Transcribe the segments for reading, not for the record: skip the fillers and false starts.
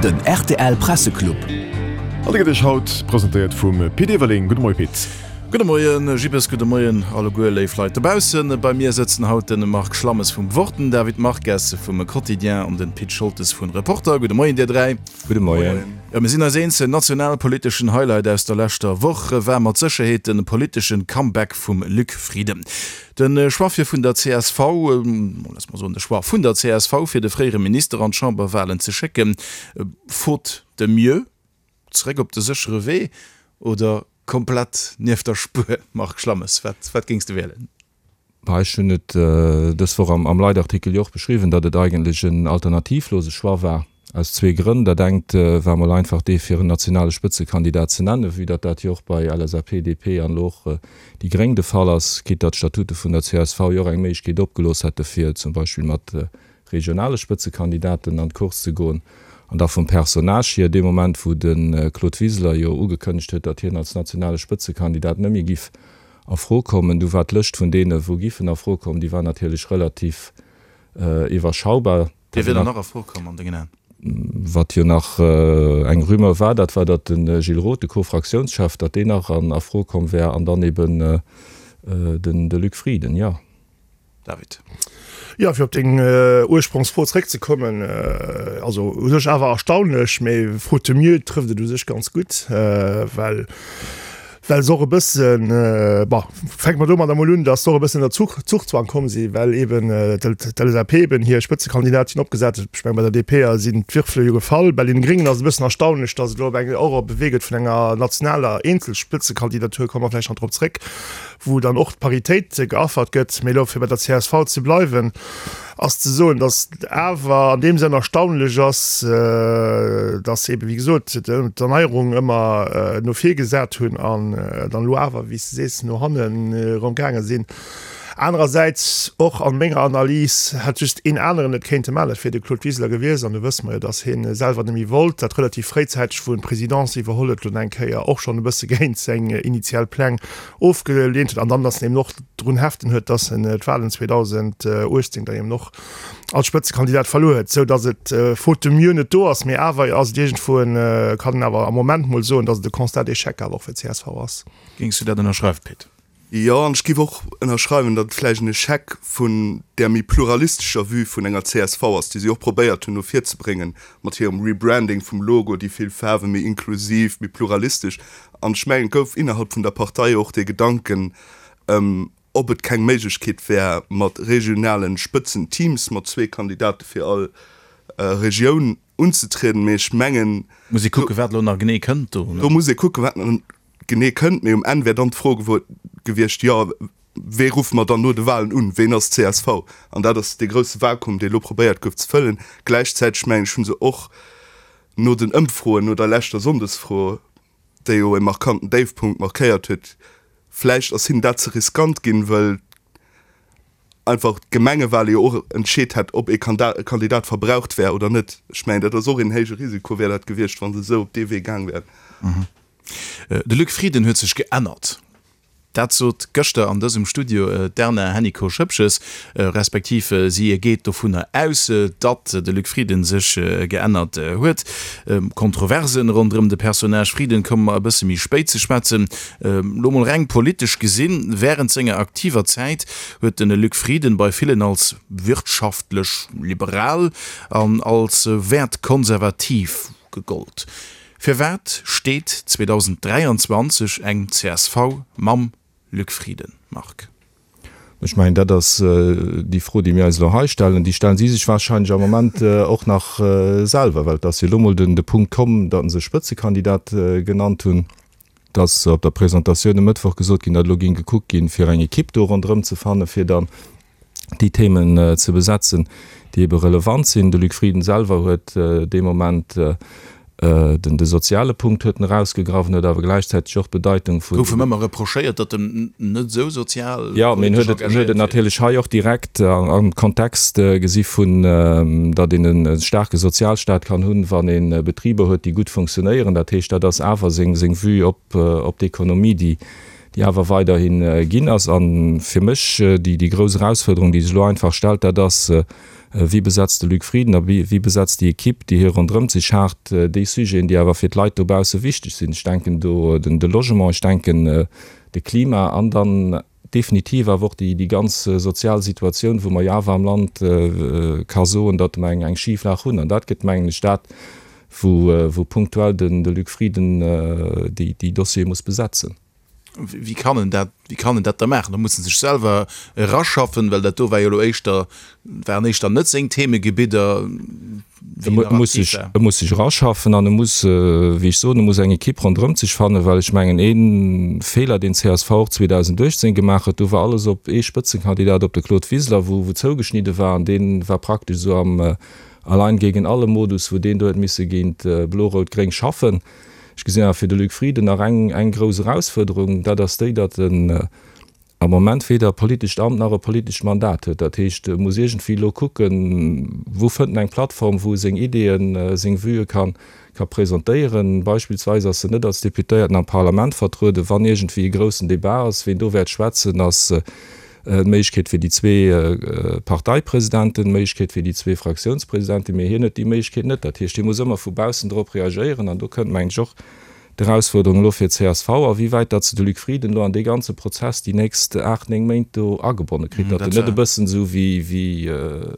Den rtl Presseclub. An dee gëtt Iech haut presentéiert vum Pit Everling. Gudde Moie Pit. Gudde Moien Jibbes, gudde Moien alleguer léif Leit dobaussen. Bei mir sëtzen haut den Marc Schlammes vum Wort, den David Marques vum Quotidien an den Pit Scholtes vun Reporter. Gudde Moien dir 3. Gudde Moien. Jo, mir sinn eis eens, den nationalpoliteschen Highlight aus der leschter Woch war mat Sécherheet de politeschen Comeback vum Luc Frieden. De Choix fir vun der csv, loosse mer soen de Choix vun der csv fir de fréiere Minister an d'Chamberwahlen ze schécken, faute de mieux, zeréck op de séchere Wee oder komplett nieft der Spuer? Marc Schlammes, wat wat géings de wielen? Bah, ech hunn et dës Woch am Leitartikel jo och beschriwwen, datt et eigentlech en alternativlose Choix war. Aus zwee Grënn. Dat engt war mol einfach dee fir en nationale Spëtzekandidat ze nennen, vue datt dat jo och bei LSAP, DP an elo och déi Gréng de Fall ass, quitte datt d'Statute vun der csv jo och eng Méiglechkeet opgelooss hätte fir zum Beispill mat regionale Spëtzekandidaten an d'Course ze goen. An da vum Personnage hier, dee Moment wou de Claude Wiseler jo ugekënnegt huet, datt hien als nationale Spëtzekandidat net méi giff a Fro kommen, du war d'Lëscht vun deene wou giffen a Fro kommen, déi war natierlech relativ iwwerschaubar. Wie wier dann nach a Fro komm an dengen Aen? Wat jo nach eng Rumeur war, dat war, datt de Gilles Roth, de Co-Fraktiounschef, datt deen nach a Fro komm wär an dann eben den de Luc Frieden, jo. David. Jo, fir op deng Ursprongsfro zréckzekommen, also u sech awer erstaunlech, mee faute de mieux trëfft et u sech ganz gutt, well Well se och e bëssen, bon, fänke mer domadder emol un, datt se och e bëssen ënner Zuchzwang komm sinn, well eeben d'LSAP eben hir Spëtzekandidatin opgesat huet. Ech mengen, bei der DP sinn d'Würfele jo gefall. Bei den Gréngen ass et e bëssen erstaunlech, datt et elo op eng och op e Wee gëtt vun enger nationaler Eenzelspëtzekandidatur, komme mer vläicht nach drop zréck, wou dann och d'Paritéit geaffert gëtt. Mee elo, fir bei der csv ze bleiwen, ass ze soen, datt et awer an deem Sënn erstaunlech ass, datt se eebe wéi gesot d'Erneierung ëmmer no vir gesat hunn an dann elo awer, wéi s de sees, no hannen erëm gaange sinn. Anerersäits, och a menger Analys, hätt just een aneren et kéinte maachen, dat wier de Claude Wiseler gewiescht. An do wësse mer jo, datt hie selwer net méi wollt, dat relativ fréizäiteg, wou en d'Presidence iwwerholl huet, elo eng Kéier och schonn e bësse géint seng initial Pläng ofgeleent huet an dann, datt en eben och drun heften huet, datt en d'Wahlen 2018 dann eben och als Spëtzekandidat verluer huet, sou datt et faute de mieux net do ass, mee awer ass et iergendwou en, kann een awer am Moment mol soen, datt et e Constat d'échec awer och fir d'CSV ass. Géings du dat ënnerschreiwen, Pit? Jo, an ech géif och ënnerschreiwen, datt et vläicht en Echec vun där méi pluralistescher Vue vun enger csv ass, déi si och probéiert hunn no vir ze bréngen mat hirem Rebranding vum Logo, déi vill Faarwen, méi inklusiv, méi pluralistesch. An ech mengen, et gouf innerhalb vun der Partei och dee Gedanken, ob et keng Méiglechkeet wär, mat regionalen Spëtzenteams mat zwee Kandidate fir all Regioun unzetrieden. Mee ech mengen. Muss ee kucken, wat elo nach genee kënnt do. Do muss ee kucken, wat nach genee kënnt. Mee um Enn wär dann d'Fro gewiescht, jo, wee ruffe mer dann no de Walen un? Ween ass csv? An dat ass dee grousse Vakuum, dee elo probéiert gouf ze fëllen. Gläichzäiteg, mengen ech, hu se och no den Ëmfroen, no der leschter Sonndesfro, déi jo e markanten Déifpunkt markéiert huet, vläicht ass hinnen dat ze riskant ginn, wëll einfach d'Gemengewale jo och entscheet hätt, ob ee Kandidat verbraucht wär oder net. Ech mengen, dat ass och een héije Risiko wär dat gewiescht, wa se esou op dee Wee gaang wären. De Luc Frieden huet sech geännert. Dat sot gëschter an dësem Studio d'Erna Hennicot-Schoepges, respektiv si geet dovunner aus, datt de Luc Frieden sech geännert huet. Kontroversen ronderëm de Personnage Frieden komme mer e bësse méi spéit ze schwätzen. Lo mol reng politesch gesinn, Wärend senger aktiver Zäit huet de Luc Frieden bei villen als wirtschaftlech liberal an als wäertkonservativ gegollt. Firwat steet 2023 eng csv mam Luc Frieden, Marc? Ech mengen, dat ass déi Fro, déi mir eis elo hei stellen. Déi stellen si sech wahrscheinlech am Moment och nach selwer, well et ass jo elo mol de Punkt komm, datt se e Spëtzekandidat genannt hunn. Et ass op der Presentatioun e Mëttwoch gesot ginn, datt elo géing gekuckt ginn, fir eng Ekipp do ronderëm ze fannen, fir dann déi Themen ze besetzen, déi ebe relevant sinn. De Luc Frieden selwer huet dee Moment den de soziale Punkt huet en erausgegraff, en huet awer gläichzäiteg och d'Bedeitung vun. Gouf em ëmmer reprochéiert, datt en net esou sozial Jo, mee en huet et, en huet et natierlech hei och direkt am Kontext gesi vun, datt een e staarke Sozialstaat kann hunn, wann ee Betriber huet, déi gutt funktionéieren. Dat heescht, dat ass awer seng seng Vue op op d'Ekonomie, déi déi awer weiderhi ginn ass. A fir mech déi, déi grouss Erausfuerderung, déi sech elo einfach stellt, dat ass. Wie besetzt de Luc Frieden a wie besetzt déi Equipe, déi hie ronderëmt sech haart, déi Sujeten, déi awer fir d'Leit dobausse wichteg sinn? Ech denken do de Logement, ech denken de Klima an dann definitiv awer och déi ganz sozial Situatioun, wou mer jo awer am Land ka soen, datt mer eng Schiflag hunn. An dat gëtt, mengen ech, dat, wou punktuell de Luc Frieden déi Dossiere muss besetzen. Wéi kann en dat, wéi kann en dat da maachen? Da muss en sech selwer eraschaffen, well dat do war jo elo éischter, waren éischter net seng Themegebidder, wéi en nach aktiv war. E muss sech eraschaffen an e muss, wéi ech soen, e muss eng Ekipp ronderëmt sech fannen, well ech mengen, ee Feeler, deen csv och 2018 gemaach huet, do war alles op ee Spëtzekandidat, op de Claude Wiseler, wou zougeschnidde war an dee war praktesch esou am Allein gegen alle Modus, wou deen do huet misse géint Blo-Rout-Gréng schaffen. Ech gesinn awer fir de Luc Frieden nach eng, eng grouss Erausfuerderung, dat ass déi, datt en am Moment weder e politescht Amt nach e politescht Mandat huet. Dat heescht, e muss iergendwéi elo kucken, wou fënnt en eng Plattform, wou e seng Ideeën, seng Vuë ka, ka presentéieren. Beispillsweis ass en net als Deputéierten am Parlament vertrueden. Wann iergendwéi e groussen Debat ass, ween do wäert schwätzen, ass d'Méiglechkeet fir déi zwee Parteipresidenten, d'Méiglechkeet fir déi zwee Fraktiounspresidenten, mee hien huet déi Méiglechkeet net. Dat heescht, hie muss ëmmer vu baussen drop reagéieren an do kënnt, mengen ech, och d'Erausfuerderung elo fir d'CSV, a wéi wäit datt se de Luc Frieden elo an dee ganze Prozess déi nächst aacht, néng Méint do agebonne kritt, datt en net e bëssen esou wéi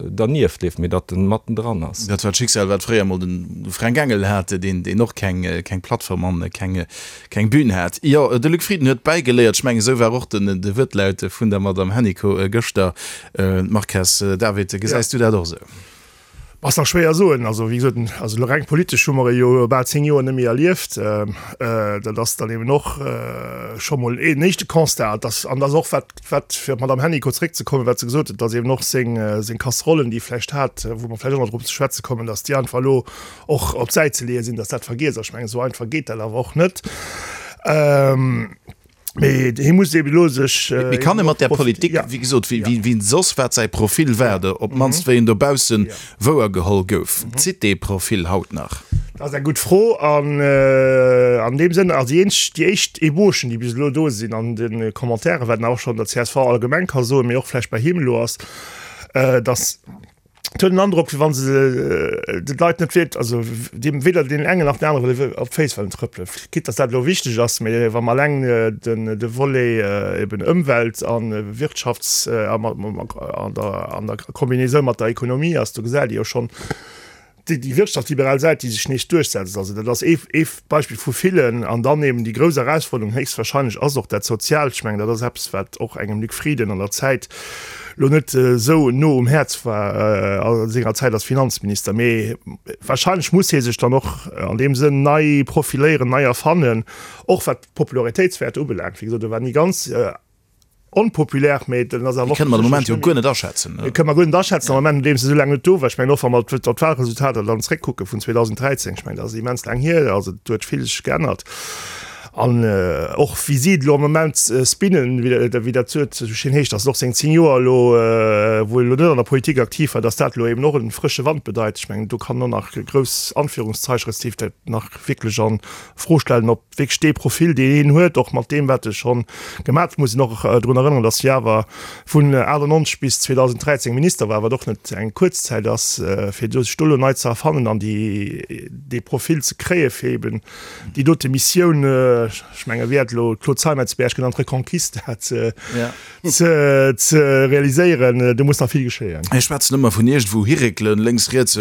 dernieft leeft, mee datt en mattendran ass. Dat war d'Schicksal, wat fréier emol de Fränk Engel hat, deen och keng Plattform an keng Keng Bühn hat. Jo, de Luc Frieden huet bäigeléiert. Ech mengen, esou war och den de Wuertlaut vun der Madame Hennicot gëschter. Marques David, gesäis du dat och esou? Ass nach schwéier soen. Also wéi gesot, also elo reng politesch hu mer e jo bal 10 Joer net méi erlieft. Dat ass dann eben och scho mol een éischte Constat. Dass, an dass och wat, wat fir op d'Madame Hennicot zréckzekommen, wat se gesot huet, dass eben och seng, seng Casserollen, déi e vläicht hat, wou mer vläicht och nach drop ze schwätze kommen, dass déi einfach elo och op d'Säit ze leeë sinn, datt dat vergiess ass. Ech mengen, esou einfach geet dat awer och net. Mee hie muss eeben elo sech. Mee kann e mat där Politik, wéi gesot, wéi wéi soss wat säi Profil war, oder op d'mannst wéi en dobausse wouergeholl gouf, zitt dee Profil haut nach? Dat ass eng gutt Fro. An an deem Sënn, also déi eenzeg, déi éischt Ébauchen, déi bis elo do sinn an de Commentairen, wat een awer och schonn der csv allgemeng ka soen, mee och vläicht bei him elo ass, datt, Et huet en Androck, wéi wa se de Leit net wierk, also deem weder deenen engen nach den anere wëlle op d'Féiss wëllen trëppelen. Quitte dass dat elo wichteg ass, mee wa mer eleng den de Volet eben Ëmwelt a Wirtschafts a an der an der Combinaison mat der Ekonomie ass, do gesäit ee jo schonn déi déi wirtschaftsliberal Säit, déi sech nees duerchsetzt. Also dat ass ee ee Beispill vu villen. An dann eben déi grouss Erausforderung héchstwahrscheinlech ass och dat Soziaalt. Ech mengen, dat ass eppes, wat och engem Luc Frieden an der Zäit elo net esou no um Häerz war a senger Zäit als Finanzminister. Mee wahrscheinlech muss hie sech dann och an deem Sënn nei profiléieren, nei erfannen, och wat d'Popularitéitswäerter ubelaangt. Wéi gesot, e war ni ganz onpopulär, mee den ass awer och. Déi kënne mer de Moment jo guer net aschätzen. Déi kënne mer guer net aschätzen am Moment, nodeems e esou laang net do war. Ech mengen och, wa mer op d'Wahlresultater dann zréckkucke vun 2013, ech mengen, dat ass immens laang hier, also do huet vill sech geännert. An och wéi si et elo am Moment spinnen, wéi dat esou schéin heescht, datt et och seng 10 Joer elo, wou e elo net an der Politik aktiv war, datt dat elo eben och e frësche Wand bedeit. Ech mengen, do kann och nach grouss Anführungszeichen, respektiv dat nach wierklech a Fro stellen, ob wierklech dee Profil, deen hien huet, och mat deem, wat e scho gemaach huet, muss een och drun erënneren, datt hie awer vun 98 bis 2013 Minister war, wat och net eng kuerz Zäit ass, fir do sech do elo nei ze erfannen an déi, dee Profil ze kréie fir eben déi dote Missioun, ech menge wéi hat elo d'Claude Zeimetz-Berg genannt, Reconquista ze, ze, ze realiséieren, do muss nach vill geschéien. Mir schwätzen ëmmer vun iergendwou hiréckelen, lénks, riets,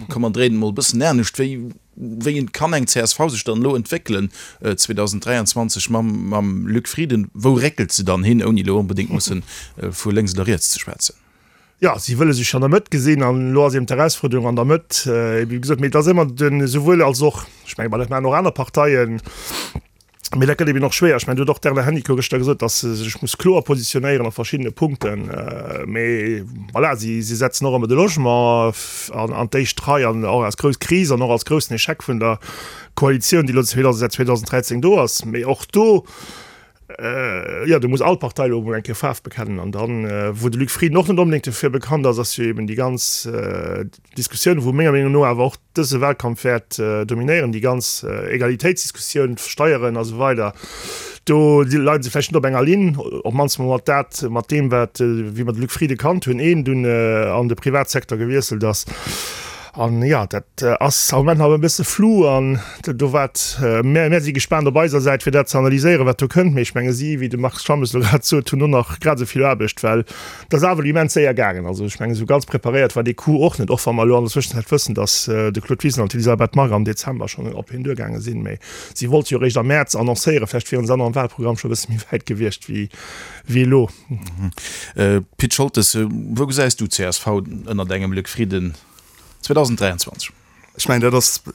komm mer dréinen emol e bëssen anescht. Wéi Wéi kann eng csv sech dann elo entwéckelen 2023 mam mam Luc Frieden? Wou réckelt se dann hin, ouni elo onbedéngt musse vu lénks oder riets ze schwätzen? Jo, si wëlle sech an der Mëtt gesinn an elo ass eben d'Erausfuerderung an der Mëtt, wéi gesot, mee et ass ëmmer den esouwuel als och. Ech menge, ma dat maachen och aner Parteien. Mee dat gëtt eben och schwéier. Ech mengen, do huet och d'Erna Hennicot gëschter gesot, datt se sech muss kloer positionéieren a verschiddene Punkten. Mee voilà, si, si setzen och ëmmer de Logement an, an d'éischt Rei an och als grouss Kris an och als groussen Echec vun der Koalitioun, déi elo säit 2013 do ass. Mee och do. Jo, do muss all Partei elo emol eng Kéier Faarf bekennen. An dann, wou de Luc Frieden och net onbedéngt dofir bekannt ass, ass jo eben déi ganz Diskussioun, wou menger Meenung no awer och dëse Wahlkampf wäert dominéieren, déi ganz Egalitéitsdiskussioun, d'Steieren a sou weider. Do leie se vläicht net op enger Linn, op d'mannst mol mat dat, mat deem wat, wéi mer de Luc Frieden kannt hunn, een dunn an de Privatsecteur gewiesselt ass. An jo, dat ass am Moment nach e bësse flou an do wat, mär, mär si gespaant op eiser Säit fir dat ze analyséieren, wat do kënnt. Mee ech menge si, wéi de Marc Schammes elo grad sot, hunn och nach grad esou vill Aarbecht, well et ass awer elo immens séier gaangen. Also ech menge sou ganz preparéiert war dee Coup och net, och wa mer elo an der Zwëschenzäit wëssen, datt de Claude Wiseler an d'Elisabeth Margue am Dezember schonn op hien duergaange sinn. Mee si wollte jo eréischt am Mäerz annoncéieren, vläicht wieren se dann am Wahlprogramm scho e bësse méi wäit gewiescht wéi elo. Pit Scholtes, wou gesäis du csv ënnert engem Luc Frieden 2023? Ech mengen, dat ass, den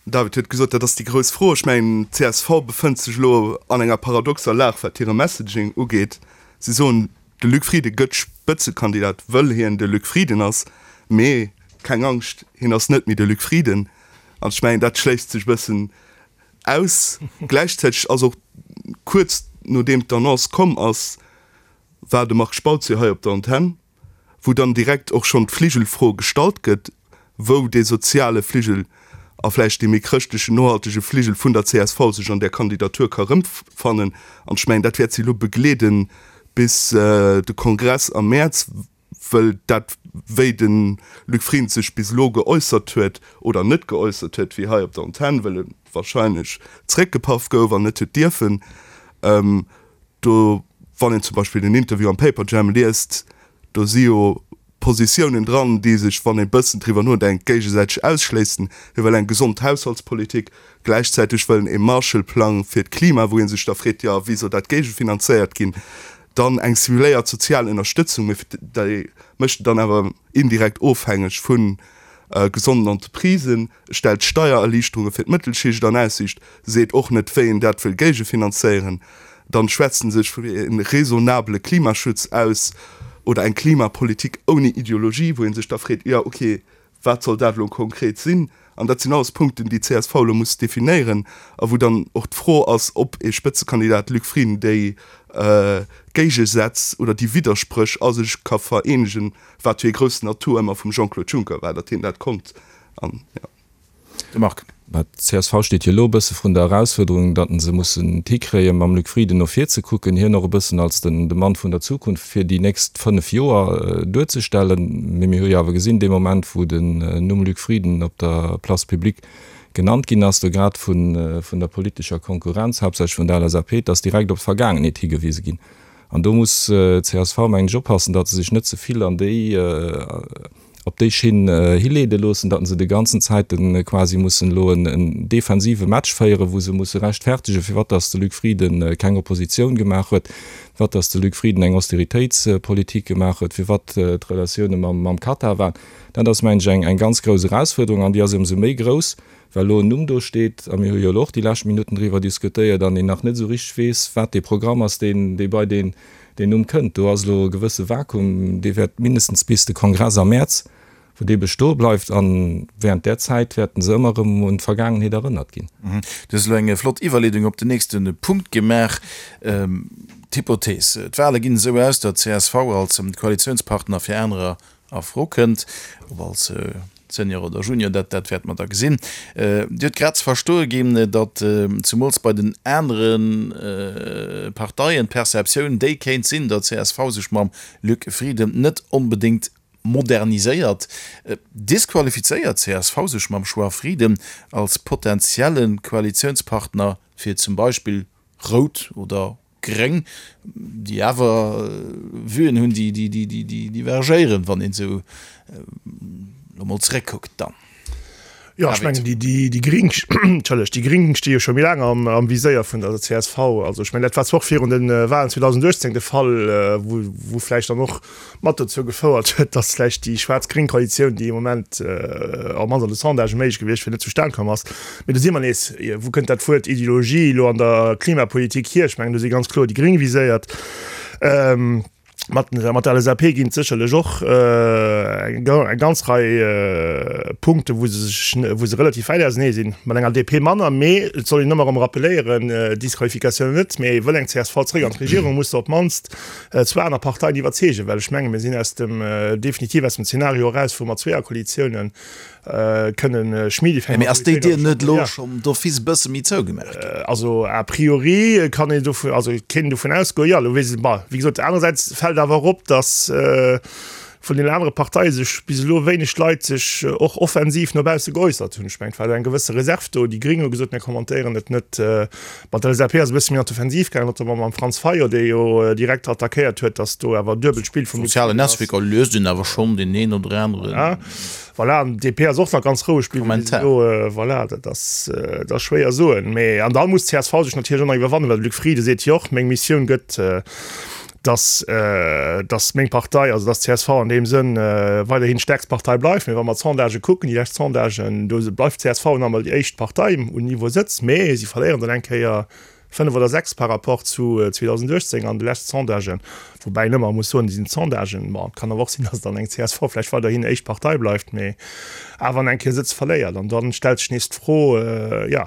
David huet gesot, dat ass déi grouss Fro. Ech mengen, csv befënnt sech elo an enger paradoxer Lag, wat hire Messaging ugeet. Si soen, de Luc Frieden gëtt Spëtzekandidat, wëll hien de Luc Frieden ass, mee keng Angscht, hien ass net méi de Luc Frieden. An ech mengen, dat schléisst sech e bëssen aus. Gläichzäiteg ass och kuerz nodeem d'Annonce komm ass, war de Marc Spautz jo hei op der Antenn, wou dann direkt och schonn d'Fligelfro gestallt gëtt, wou dee soziale Fligel a vläicht dee méi chrëschtlechen, nohaltege Fligel vun der csv sech an där Kandidatur ka rëmfannen. An ech mengen, dat wäert si elo begleeden bis de Kongress am Mäerz, wëll dat, wéi de Luc Frieden sech bis elo geäussert huet oder net geäussert huet, wéi hei op der Antenn, wëll e wahrscheinlech zréckgepaff gouf an net huet dierfen, do, wann een zum Beispill den Interview am Paperjam liest, do si jo Positiounen dran, déi sech, wann ee bëssen driwwer nodenkt, géigesäiteg ausschléissen. Hie wëll eng gesond Haushaltspolitik, gläichzäiteg wëll en ee Marshallplang fir d'Klima, wou ee sech da freet, jo, wéi soll dat géigefinanzéiert ginn? Dann eng simuléiert sozial Ënnerstëtzung, mee déi mécht en dann awer indirekt ofhängeg vu gesonden Entreprisen, stellt Steiererliichterunge fir d'Mëttelschicht an Aussiicht, seet och net, wéi en dat wëll géigefinanzéieren. Dann schwätzt en sech fir e raisonnabele Klimaschutz aus oder eng Klimapolitik ouni Ideologie, wou ee sech da freet, jo ok, wat soll dat elo konkret sinn? An dat sinn alles Punkten, déi d'CSV elo muss definéieren a wou dann och d'Fro ass, ob ee Spëtzekandidat Luc Frieden déi Géigesätz oder déi Widderspréch a sech ka vereenegen, wat jo ee groussen Atout ëmmer vum Jean-Claude Juncker war, datt hien dat konnt. An, jo. De Marc. Mä d'CSV steet jo elo e bësse vrun der Erausfuerderung, datt se mussen et hikréien, mam Luc Frieden no vir ze kucken, hien och e bëssen als den de Mann vun der Zukunft fir déi nächst 5 Joer duerzestellen. Mee mir hu jo awer gesinn, dee Moment, wou den Numm Luc Frieden op der Place publique genannt ginn ass, do grad vun vun der politescher Konkurrenz, haaptsächlech vun der LSAP, et ass direkt op d'Vergaangenheet higewise ginn. An do muss d'CSV, mengen ech, oppassen, datt se sech net ze vill an déi, op déi Schinn hileede loossen, datt se de ganzen Zäite quasi mussen elo en defensive Match féieren, wou se musse rechtfertegen, firwat datt de Luc Frieden keng Oppositioun gemaach huet, firwat datt de Luc Frieden eng Austeritéitspolitik gemaach huet, firwat d'Relatioune mam Katar waren. Dat ass, mengen ech, eng ganz grouss Erausfuerderung an déi ass ëmsou méi grouss, well elo en Numm do steet, a mir hu jo elo och déi lescht Minutten driwwer diskutéiert, an een nach net esou richteg weess, wat dee Programm ass, deen, dee bei deen, deen Numm kënnt. Do ass elo e gewësse Vakuum, dee wäert mindestens bis de Kongress am Mäerz, wou dee bestoe bleift, a während där Zäit wäerten se ëmmer erëm un d'Vergaangenheet erënnert ginn. Du hues elo eng flott Iwwerleedung op den nächste Punkt gemaach. D'Hypothees, d'Wale ginn esou aus, datt csv als Koalitiounspartner fir anerer a Fro kënnt, ob als Senior oder Junior, dat dat wäerte mer da gesinn. Dir hutt grad ze verstoe ginn, datt zemools bei den anere Parteien d'Perceptioun déi kéint sinn, datt csv sech mam Luc Frieden net onbedéngt moderniséiert. Disqualifizéiert csv sech mam Choix Frieden als potentielle Koalitiounspartner fir zum Beispill Rout oder Gréng, déi awer Vuen hunn, déi divergéieren, wann een esou elo mol zeréckkuckt dann. Jo, ech mengen, déi Gréng, entschëllegt, déi Gréng sti jo scho méi laang am Viséier vun der csv. Also ech mengen, dat war zwar och virun de Wahlen 2018 de Fall, wou vläicht dann och mat dozou gefouert huet, datt vläicht déi schwaarz-gréng Koalitioun, déi am Moment op mannst an de Sondagë méiglech gewiescht wier, net zustan komm ass. Mee do si mer nees, Wou kënnt dat Wuert Ideologie elo an der Klimapolitik hier? Ech mengen, do si ganz kloer déi Gréng viséiert. Mat mat der LSAP ginn et sécherlech och eng eng ganz Rei Punkte wou se sech wou se relativ wäit ausenee sinn. Mat enger DP manner, mee et soll een ëmmer erëm rappeléieren, Disqualifikatioun net, mee wëll eng csv zréck an d'Regierung, muss se op d'mannst zwou aner Parteien iwwerzeegen, well ech menge mir sinn aus dem definitiv aus dem Zeenario eraus, wou mer Zweeërkoalitiounen kënnen schmidi fir eng Mee ass déi Dier net elo schonn d'office e bësse méi zougemaach ginn? Also a priori kann een dovun, also kéint een dovun ausgoen, jo. Elo weess ech, bon, wéi gesot, anerersäits fält awer och op, datt vun den anere Parteie sech bis elo wéineg Leit sech och offensiv no bausse geäussert hunn. Ech mengen, et war do eng gewësse Reserv do. Déi Gring hu gesot, mir kommentéieren et net. Bon, d'LSAP ass e bësse méi an d'Offensiv gaangen, notamment mam Franz Fayot, dee jo direkt attackéiert huet, datt do awer duebelt Spill vum Luc Sozialen Frieden ass. Netzwierker liest een awer schonn deen een oder aneren. Voilà, an d'DP ass och nach ganz roueg bliwwen bis elo. Voilà, dat ass, dat ass schwéier soen. Mee, an da muss d'CSV sech natierlech och nach iwwerwannen, well de Luc Frieden seet jo och, meng Missioun gëtt, dass, dass meng Partei, also dass d'CSV an deem Sënn weiderhin d'stäerkst Partei bleift. Mee wa mer d'Sondagë kucken, déi lescht Sondagen, do bleift d'CSV nach emol déi éischt Partei un Niveau Sëtz, mee si verléieren dann eng Kéier 5 oder 6 par rapport zu 2018 an de leschte Sondagen, woubäi een ëmmer muss soen, déi sinn d'Sondagen, bon, et kann awer och sinn, datt dann eng csv vläicht weiderhin éischt Partei bleift, mee awer an eng Kéier Sëtz verléiert. An dann stellt sech nees d'Fro, jo,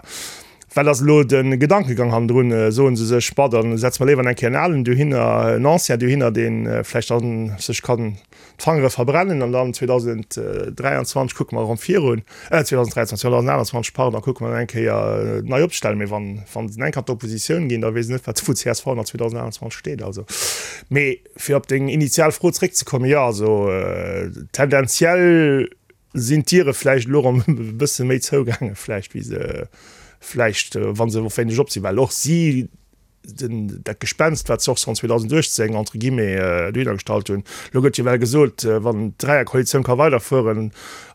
wat ass elo de Gedankegang hannendrun? Soen se sech, bon, da setze mer léiwer eng Kéier en alen dohinner, en Ancien dohinner, dee vläicht dann sech kann d'Fangere verbrennen an dann 2023 kucke mer erëm virun, äh 2023, 2028, pardon, kucke mer dann eng Kéier nei opzestellen. Mee wann, wann se eng Kéier an d'Oppositioun ginn, da weess ech net, wat wou csv nach 2028 steet. Also, mee fir op deng initial Fro zréckzekommen, jo, also tendenziell sinn d'Diere vläicht elo erëm e bësse méi zougaange vläicht, wéi se vläicht, wa se och wéineg op sinn, well och si den, dat Gespenst, wat se och schonn 2018 entre guillemets dohinner gestallt hunn. Elo gëtt jo well gesot, wann d'Dräierkoalitioun ka weiderfueren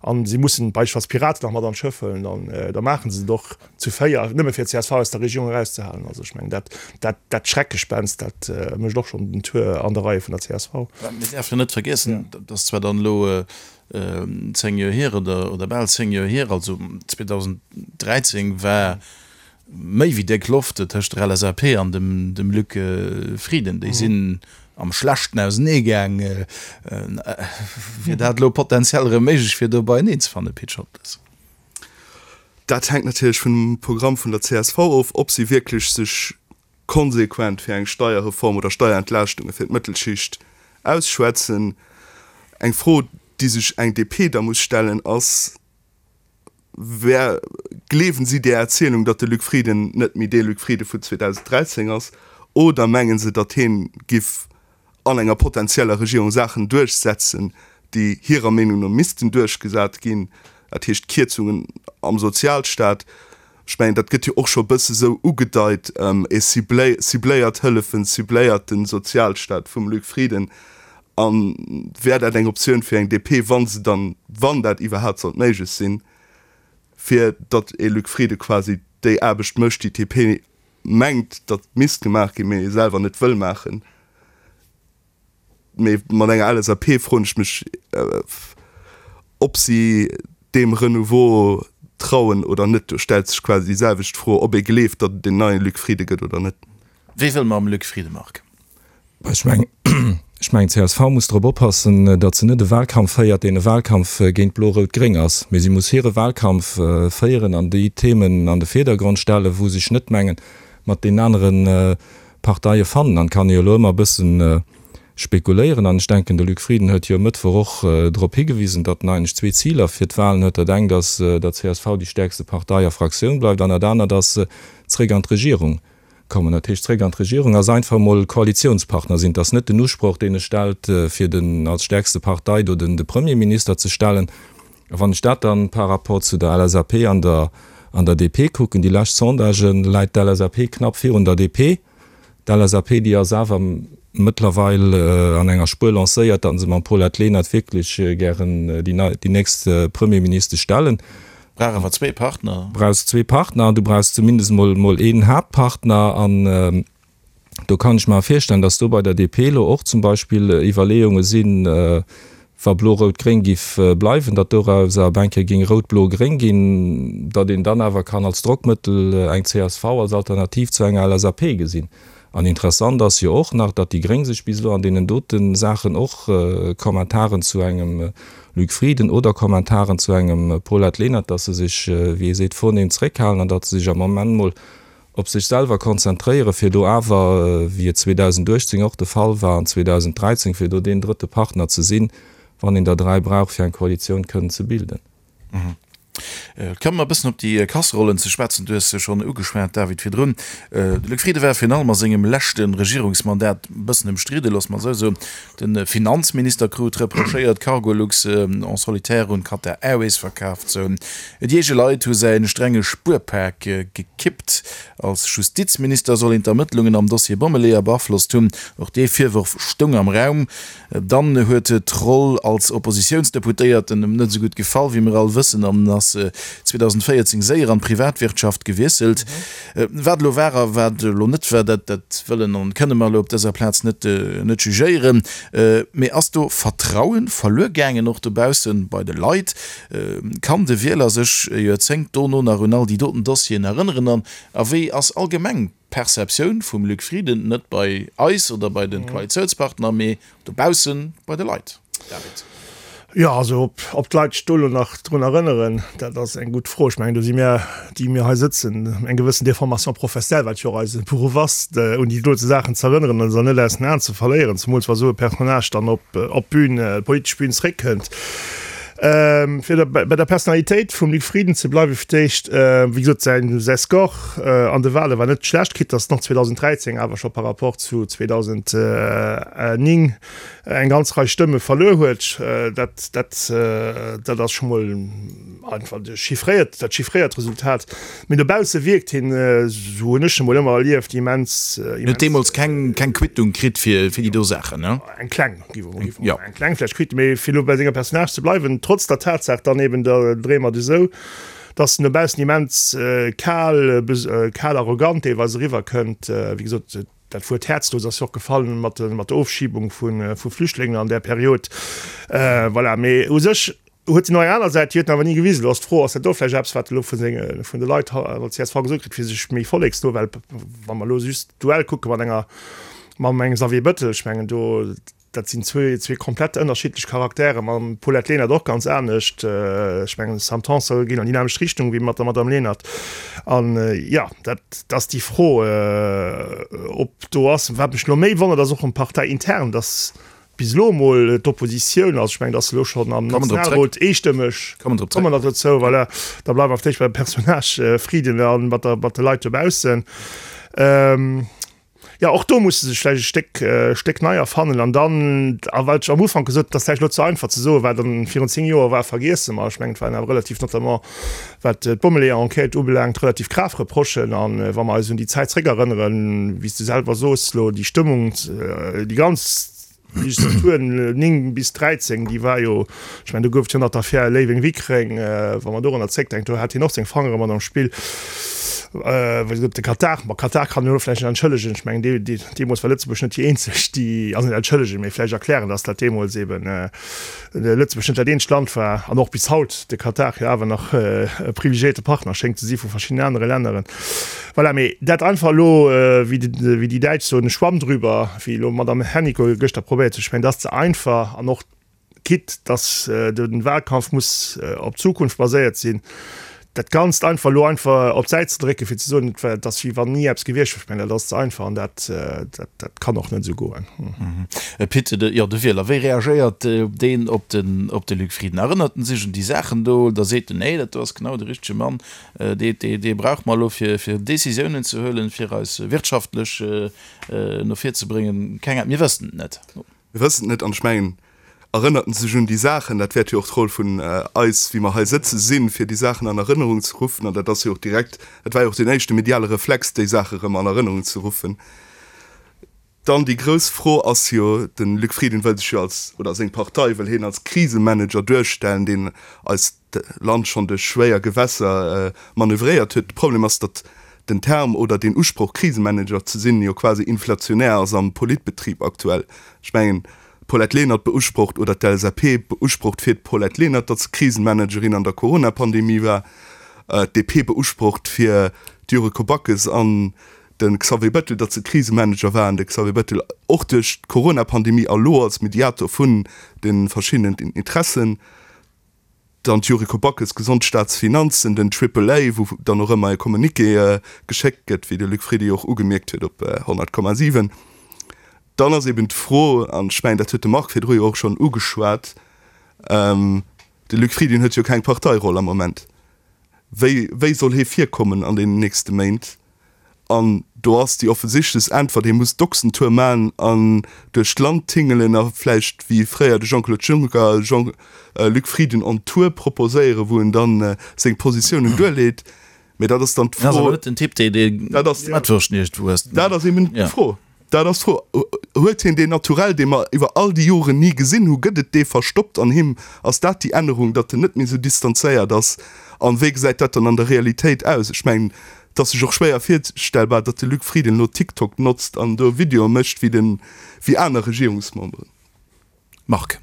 an si mussen beispillsweis d'Piraten nach mat an d'Schëff huelen, dann, da maache se et och zu 4, nëmme fir csv aus der Regierung erauszehalen. Also ech mengen, dat, dat, dat Schreckgespenst, dat mécht och schonn den Tour an de Reie vun der csv. Mir däerfen jo net vergiessen, dat ass zwar dann elo 10 Joer hier oder, oder bal 10 Joer hier, also 2013 war méi wéi déck Loft tëscht der LSAP an dem dem Luc Frieden. Déi sinn am Schlechten ausenee gaang. Wier dat elo potenziell erëm méiglech fir do beieneen ze fannen, Pit Scholtes? Dat hänkt natierlech vum Programm vun der csv of, ob si wierklech sech konsequent fir eng Steierreform oder Steierentlaaschtunge fir d'Mëttelschicht ausschwätzen. Eng Fro, déi sech eng DP da muss stellen, ass, Wär, gleewen si där Erzielung, datt de Luc Frieden net méi dee Luc Frieden vun 2013 ass, oder mengen se, datt hien giff an enger potenzieller Regierung Saachen duerchsetzen, déi hirer Meenung no missten duerchgesat ginn, dat heescht Kierzungen am Sozialstaat? Ech mengen, dat gëtt jo och scho e bësse sou ugedeit, e cibléiert Hëllefen, cibléiert de Sozialstaat vum Luc Frieden. A wär dat eng Optioun fir eng DP, wa se dann, wann dat iwwerhaapt sollt méiglech sinn, fir datt ee Luc Frieden quasi déi Aarbecht mécht, déi d'DP mengt, datt misst gemaach ginn, mee selwer net wëll maachen? Mee mat enger LSAP froen ech mech, ob si deem Renouveau trauen oder net. Do stellt sech quasi déi selwecht Fro, ob ee gleeft, datt et een neie Luc Frieden gëtt oder net. Wéi wëll mam Luc Frieden, Marc? Ech mengen, ech mengen, d'CSV muss drop oppassen, datt se net e Wahlkampf féiert, deen e Wahlkampf géint Blo-Rout-Gréng ass, mee si muss hire Wahlkampf féieren an déi Themen an de Virdergrond stellen, wou sech net mengen, mat deenen anere Parteie fannen. An et kann ee jo elo ëmmer e bëssen spekuléieren an ech denken, de Luc Frieden huet jo e Mëttwoch och drop higewisen, datt en eigentlech zwee Ziler fir d'Wahlen huet. Dat engt ass, datt csv déi stäerkste Partei a Fraktioun bleift an dat anert ass, zréck an d'Regierung kommen. Dat heescht, zréck an d'Regierung ass einfach emol Koalitionspartner sinn. Et ass net den Usproch, deen e stellt, fir den als stärkste Partei do den de Premierminister ze stellen. A wann ech dat dann par rapport zu der LSAP an der an der DP kucken, déi lescht Sondagen, läit d'LSAP knapp virun der DP. D'LSAP, déi ass awer mëttlerweil an enger Spuer lancéiert, datt se mam Paulette Lenert wierklech gären déi nei déi nächst Premierministesch stellen. Brauch awer zwee Partner. Brauchs zwee Partner an du brauchs zumindest mol mol een Haaptpartner. An do kann ech mer virstellen, datt do bei der DP elo och zum Beispill Iwwerleeunge sinn, wa Blo-Rout-Gréng giff bleiwen, datt dorauser op eng Kéier géing Rout-Blo-Gréng ginn, datt een dann awer kann als Drockmëttel eng csv als Alternativ zu enger LSAP gesinn. An interessant ass jo och nach, datt déi Gréng sech bis elo an deenen dote Saachen och Kommentaren zu engem Luc Frieden oder Kommentaren zu engem Paulette Lenert, datt se sech, wéi ee seet, vornehm zréckhalen an datt se sech am Moment mol op sech selwer konzentréieren, fir do awer, wéi et 2018 och de Fall war an 2013, fir do deen drëtte Partner ze sinn, wann een der 3 brauch, fir eng Koalitioun kënnen ze bilden. Komme mer e bëssen op déi Kasserollen ze schwätzen. Du hues se schonn ugeschwat, David, virdrun. De Luc Frieden war virun allem a sengem leschte Regierungsmandat e bëssen ëmstridde, loosse mer esou soen. De Finanzminister krut reprochéiert, Cargolux en solitaire un Qatar Airways verkaf ze hunn. Déi eege Leit hu säi strenge Spuerpak gekippt. Als Justizminister soll een d'Ermëttlungen am Dossier Bommeleeër beaflosst hunn. Och dee Virworf stoung am Raum. Dann huet d'Roll als Oppositiounsdeputéierten em net esou gutt gefall, wéi mir all wëssen, an ass 2014 séier an d'Privatwirtschaft gewiesselt. Wat elo war a wat elo net war, dat dat wëllen an kënne mer elo op dëser Plaz net net jugéieren. Mee ass do Vertrauen verluer gaangen, och dobaussen bei de Leit? Kann de Wieler sech e Joerzéngt dono nach un all déi doten Dossieren erënneren? An a wéi ass allgemeng d'Perceptioun vum Luc Frieden, net bei eis oder bei de Koalitiounspartner, mee dobausse bei de Leit, David? Jo, also ob d'Leit sech do elo nach drun erënneren, dat ass eng gutt Fro. Ech mengen, do si mir, déi mir hei sëtzen, eng gewëssen Déformation professionnelle, wat jo och eise Beruff ass, un déi dote Saachen ze erënneren an se net aus den Aen ze verléieren, zemools wa sou e Personnage dann op d'Bün, d'politesch Bün zréckkënnt. Fir bei der Personalitéit vum Luc Frieden ze bleiwen, fir d'éischt, wéi gesot, säin säi Score an de Wale war net schlecht, quitte datt en och 2013 awer scho par rapport zu 2009 eng ganz Rei Stëmme verluer huet. Dat, dat, dat ass scho mol einfach de chiffréiert, dat chiffréiert Resultat. Mee dobausse wierkt hien, esou hunn ech en mol ëmmer erlieft, immens, immens. Huet deemools keng, keng Quittung kritt fir, fir déi do Saachen, ne? Eng kleng. Ja. Eng kleng vläicht Quitte, mee fir elo bei senger Personnage ze bleiwen, trotz der Tatsaach dann eben, da dréie mer et esou, dass en dobaussen immens kal, kal arrogant deelweis eriwwerkënnt. Wéi gesot, dat Wuert häerzlos ass jo och gefall mat mat der Ofschibung vu vu Flüchtlingen an där Period. Voilà, mee u sech huet en och eng aner Säit, déi huet en awer ni gewisen. Elo ass d'Fro, ass dat do vläicht eppes, wat elo vu senge vun de Leit an der csv gesot kritt, fir sech méi volleksno, well wa mer elo just d'Duell kucke mat enger Mam engem Xavier Bettel, ech mengen do, dat sinn zwee, zwee komplett ënnerschiddlech Charaktere, mam Paulette Lenert och ganz anescht. Ech mengen Sam Tanson geet an déi nämmlecht Richtung wéi mat der Madame Lenert. An jo, dat ass déi Fro, ob do ass. Wat mech elo méi wonnert, ass och erëm parteiintern, datt bis elo emol d'Oppositioun, also ech mengen, datt se elo schonn am Nationalrot eestëmmeg, kommen mer dozou, voilà, da bleiwe mer vläicht beim Personnage Frieden a mat der, mat de Leit dobaussen. Jo, och do muss se sech vläicht e Stéck, Stéck nei erfannen. An dann, a wat ech am Ufank gesot, et ass vläicht elo ze einfach ze soen, wat an virun 10 Joer war, vergiesse mer. Ech mengen, et waren awer relativ, notamment wat d'Bommeleeër-Enquête ubelaangt, relativ grav Reprochen. A wa mer eis un déi Zäit zréckerënneren, wéi s de selwer soos elo, déi Stëmmung, déi ganz, Legislatur 9 bis 13, déi war jo, ech mengen, do gouf et jo nach d'Affär Léiweng-Wickreng, wa mer dorunner zréckdenken, do hat hien och seng Fangere mat am Spill. Wéi gesot, de Katar, ma Katar kann een elo vläicht net entschëllegen, ech mengen, dee, dee, deemools war Lëtzebuerg net déi eenzeg, déi, also net entschëllegen, mee vläicht erklären, datt dat deemools eeben Lëtzebuerg net dat eenzegt Land war an och bis haut de Katar jo awer nach e privilegiéierte Partner schéngt ze si vu verschiddenen anere Länneren. Voilà, mee dat einfach elo, wéi déi Däitsch soen, Schwamm drüber, wéi elo d'Madame Hennicot gëschter probéiert huet, ech mengen, dat ass ze einfach an och quitte dass de Wahlkampf muss op d'Zukunft baséiert sinn, dat Ganzt einfach elo einfach op d'Säit ze drécken, fir ze soen, et war, et ass wéi wann ni eppes gewiescht wier, ech mengen, dat ass ze einfach an dat, dat, dat kann och net esou goen. Pit, jo, de Wieler, wéi reagéiert deen op den, op de Luc Frieden? Erënnert en sech un déi Saachen do oder seet en, nee, dat do ass genau de richtege Mann, dee, dee, dee brauche mer elo fir, fir Décisiounen ze huelen, fir eis wirtschaftlech no vir ze bréngen? Keng Ahnung, mir wëssen et net. Mir wëssen et net an ech mengen, erënnert en sech un déi Saachen, dat wäert jo och d'Roll vun eis, wéi mer hei sëtze sinn, fir déi Saachen an Erënnerung ze ruffen. An dat ass jo och direkt, dat war jo och deen éischte mediale Reflex, déi Saache erëm an Erënnerung ze ruffen. Dann déi grouss Fro ass jo, de Luc Frieden wëll sech jo als, oder seng Partei wëll hien als Krisemanager duerstellen, deen eist Land schonn duerch schwéier Gewässer manövréiert huet. De Problem ass, datt den Term oder deen Usproch Krisemanager ze sinn jo quasi inflationär ass am Politbetrib aktuell. Ech mengen, d'Paulette Lenert beusprocht oder d'LSAP beusprocht fir d'Paulette Lenert, datt se Krisenmanagerin an der Corona-Pandemie war, d'DP beusprocht fir d'Yuriko Backes an. De Xavier Bettel, datt se Krisemanager war an de Xavier Bettel och duerch d'Corona-Pandemie a lo als Mediator vun de verschiddenen Interessen. Dann d'Yuriko Backes, Gesond Staatsfinanzen, den Triple A, wou dann och ëmmer e Communiqué geschéckt gëtt, wéi de Luc Frieden jo och ugemierkt huet op 100,7. Dann ass eben d'Fro, an ech mengen, dat huet de Marc virdru jo och schonn ugeschwat, de Luc Frieden huet jo keng Parteiroll am Moment. Wéi, wéi soll hie virkommen an deenen nächste Méint? An do ass déi offensichtlechst Äntwert, hie muss d'Ochsentour man an duerch d'Land tingelen a vläicht wéi fréier de Jean-Claude Juncker Jean Luc Frieden on Tour proposéieren, wou en dann seng Positiounen duerleet. Mee dat ass dann d'Fro. Dat ass awer net den Typ, dee d'Mettwurscht iergendwou ësst. Dat ass eben d'Fro. Dat ass d'Fro. Huet hien deen Naturell, dee mer iwwer all déi Joren ni gesinn hu? Gëtt et dee verstoppt an him? Ass dat déi Ännerung, datt en net méi esou distanzéiert ass? An wéi gesäit dat dann an der Realitéit aus? Ech mengen, et ass sech och schwéier virstellbar, datt de Luc Frieden elo TikTok notzt an do Videoe mécht wéi den, wéi aner Regierungsmemberen. Marc.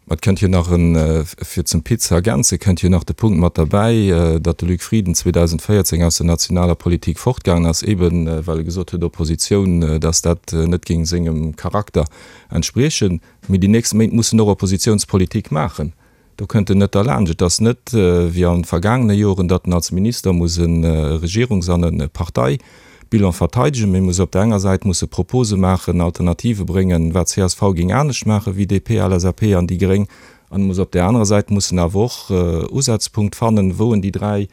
Ma et kënnt jo nach en, fir zum Pit ze ergänzen, kënnt jo nach de Punkt mat derbäi, datt de Luc Frieden 2014 aus der nationaler Politik fortgaangen ass, eeben well e gesot huet, Oppositioun, datt dat net géing sengem Charakter entspriechen. Mee déi nächst Méint muss en och Oppositiounspolitik maachen. Do kënnt en net derlaanscht. Et ass net wéi an vergaangene Joren, datt en als Minister muss e Regierungs an e Parteibilan verteidegen, mee muss op der enger Säit musse Propose maachen, Alternative bréngen, wat csv géing anescht maache wéi DP, LSAP an déi Gréng, an e muss op där anerer Säit mussen awer och Usazpunkt fannen, wou en déi 3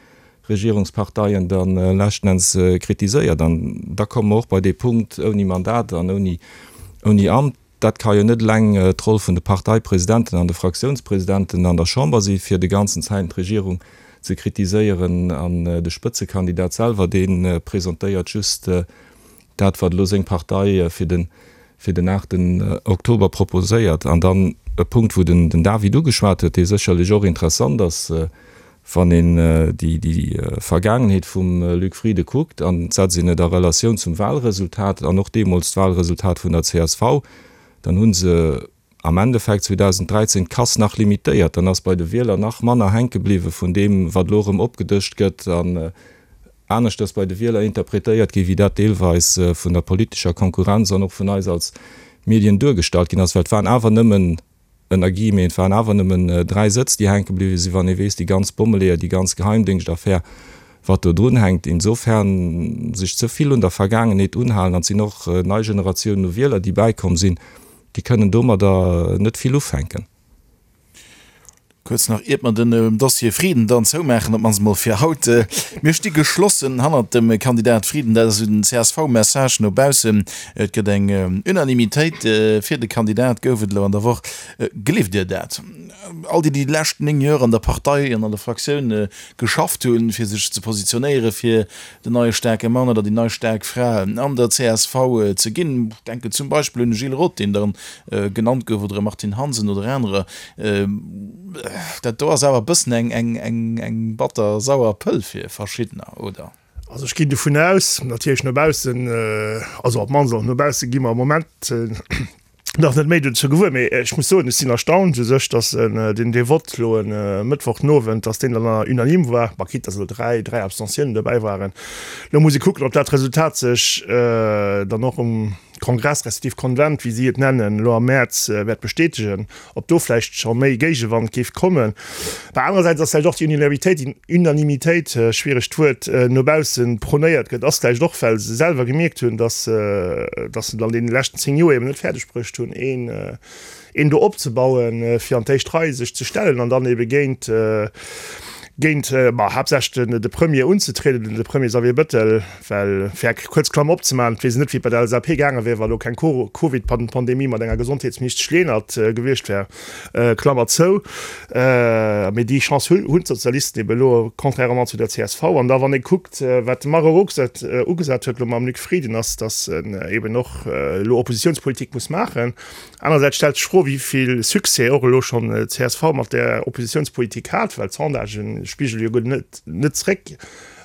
Regierungsparteien da leschten Enns kritiséiert. An da komme mer och bei dee Punkt, ouni Mandat an ouni Amt. Dat ka jo net eleng d'Roll vun de Parteipresidenten an de Fraktiounspresidenten an der Chamber si fir de ganzen Zäiten d'Regierung ze kritiséieren an de Spëtzekandidat selwer dee presentéiert just dat wat elo seng Partei fir den fir den aachten Oktober proposéiert. An dann e Punkt wou den David ugeschwat huet, dee sécherlech och interessant ass, Wann een déi Vergaangenheet vum Luc Frieden kuckt, an et setzt een et a Relatioun zum Wahlresultat an och deemools d'Wahlresultat vun der csv, dann hu se am Endeffekt 2013 d'Casse nach limitéiert. Dann ass bei de Wieler nach manner hänke bliwwe vun deem, wat elo erëm opgedëscht gëtt an aneschters bei de Wieler interpretéiert gi wéi dat deelweis vun der politescher Konkurrenz an och vun eis als Medien duergestallt ginn ass, well et waren awer nëmmen ënner Guillemeten, et waren awer nëmmen 3 Sëtz, déi hänke bliwwe sinn, wann ee weess, déi ganz Bommeleeër, déi ganz Geheimdéngschtaffär, wat do drun hänkt. Insofern sech ze vill un der Vergaangenheet unhalen, an et sinn och nei Generatiounen u Wieler, déi bäikomm sinn, déi kënnen domadder net vill ufänken. Kuerz nach, iert mer den Dossier Frieden dann zoumaachen, op d'mannst emol fir haut. Mir sti geschlossen hannert dem Kandidat Frieden. Dat ass esou den CSV-Message no baussen. Et gëtt eng Unanimitéit fir de Kandidat, gouf et elo an der Woch. Gleeft Dir dat? All déi, déi déi lescht 9 Joer an der Partei an an der Fraktioun geschafft hunn, fir sech ze positionéiere fir den neie staarke Mann oder déi nei staark Fra an der csv ze ginn, ech denken zum Beispill un de Gilles Roth, deen dann genannt gouf, oder e Martine Hansen oder anerer, dat do ass awer e bëssen eng batter sauer Pëll fir verschiddener, oder? Also ech ginn dovun aus, natierlech no baussen, also op d'mannst och no bausse gi mer am Moment nach net méi dozou gewuer, mee ech muss soen, ech sinn erstaunt u sech, datt deen dee Vott elo e Mëttwoch den Owend, datt deen dann unanime war, bah quitte datt elo 3, 3 Abstentiounen dobäi waren. Elo muss ee kucken, ob dat Resultat sech dann och um Kongress respektiv Konvent, wéi si et nennen, elo am Mäerz wäert bestätegen, ob do vläicht scho méi Géigewand géif kommen. Bah anerersäits ass vläicht och déi Unanimitéit, Unanimitéit, schwieregt Wuert, no bausse prônéiert gëtt, ass vläicht och, well se selwer gemierkt hunn, datt datt se et an deene leschten 10 Joer eben net fäerdeg bruecht hunn, een een do opzebauen, fir an d'éischt Rei sech ze stellen an dann ebe géint géint, ma haaptsächlech den de Premier unzetrieden, de Premier Xavier Bettel, well, fir eng kuerz Klammer opzemaachen, et weess een net, wéi et bei der LSAP gaange wär, wa lo keng Covid-Pandemie mat enger Gesondheetsministesch Lenert gewiescht wär, Klammer zou. Mee déi Chance hunn d'Sozialisten ebe elo, contrairement zu der csv. An da wann ee kuckt, wat de Marc Rox ugesat huet elo mam Luc Frieden, ass, datt en eben och elo Oppositionspolitik muss maachen. Anerersäits stellt sech d'Fro, wéi vill Succès och elo schonn d'CSV mat där Oppositionspolitik hat, well d'Sondagen spigele jo guer net net zréck.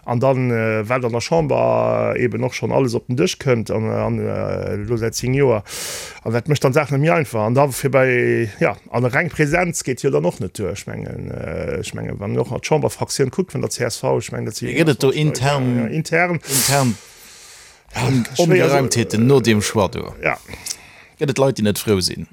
An dann, wat an der Chamber eeben och schonn alles op den Dësch kënnt an elo säit 10 Joer, an dat mécht dann d'Saach net méi einfach. An da fir bei, jo, an reng Präsenz geet jo dann och net duer. Ech mengen, ech mengen, wann een och nach d'Chamberfraktioun kuckt vun der csv, ech mengen, dat si Gëtt et do intern, intern. intern. Ongereimtheeten no deem Choix do. Gëtt et Leit, déi net frou sinn?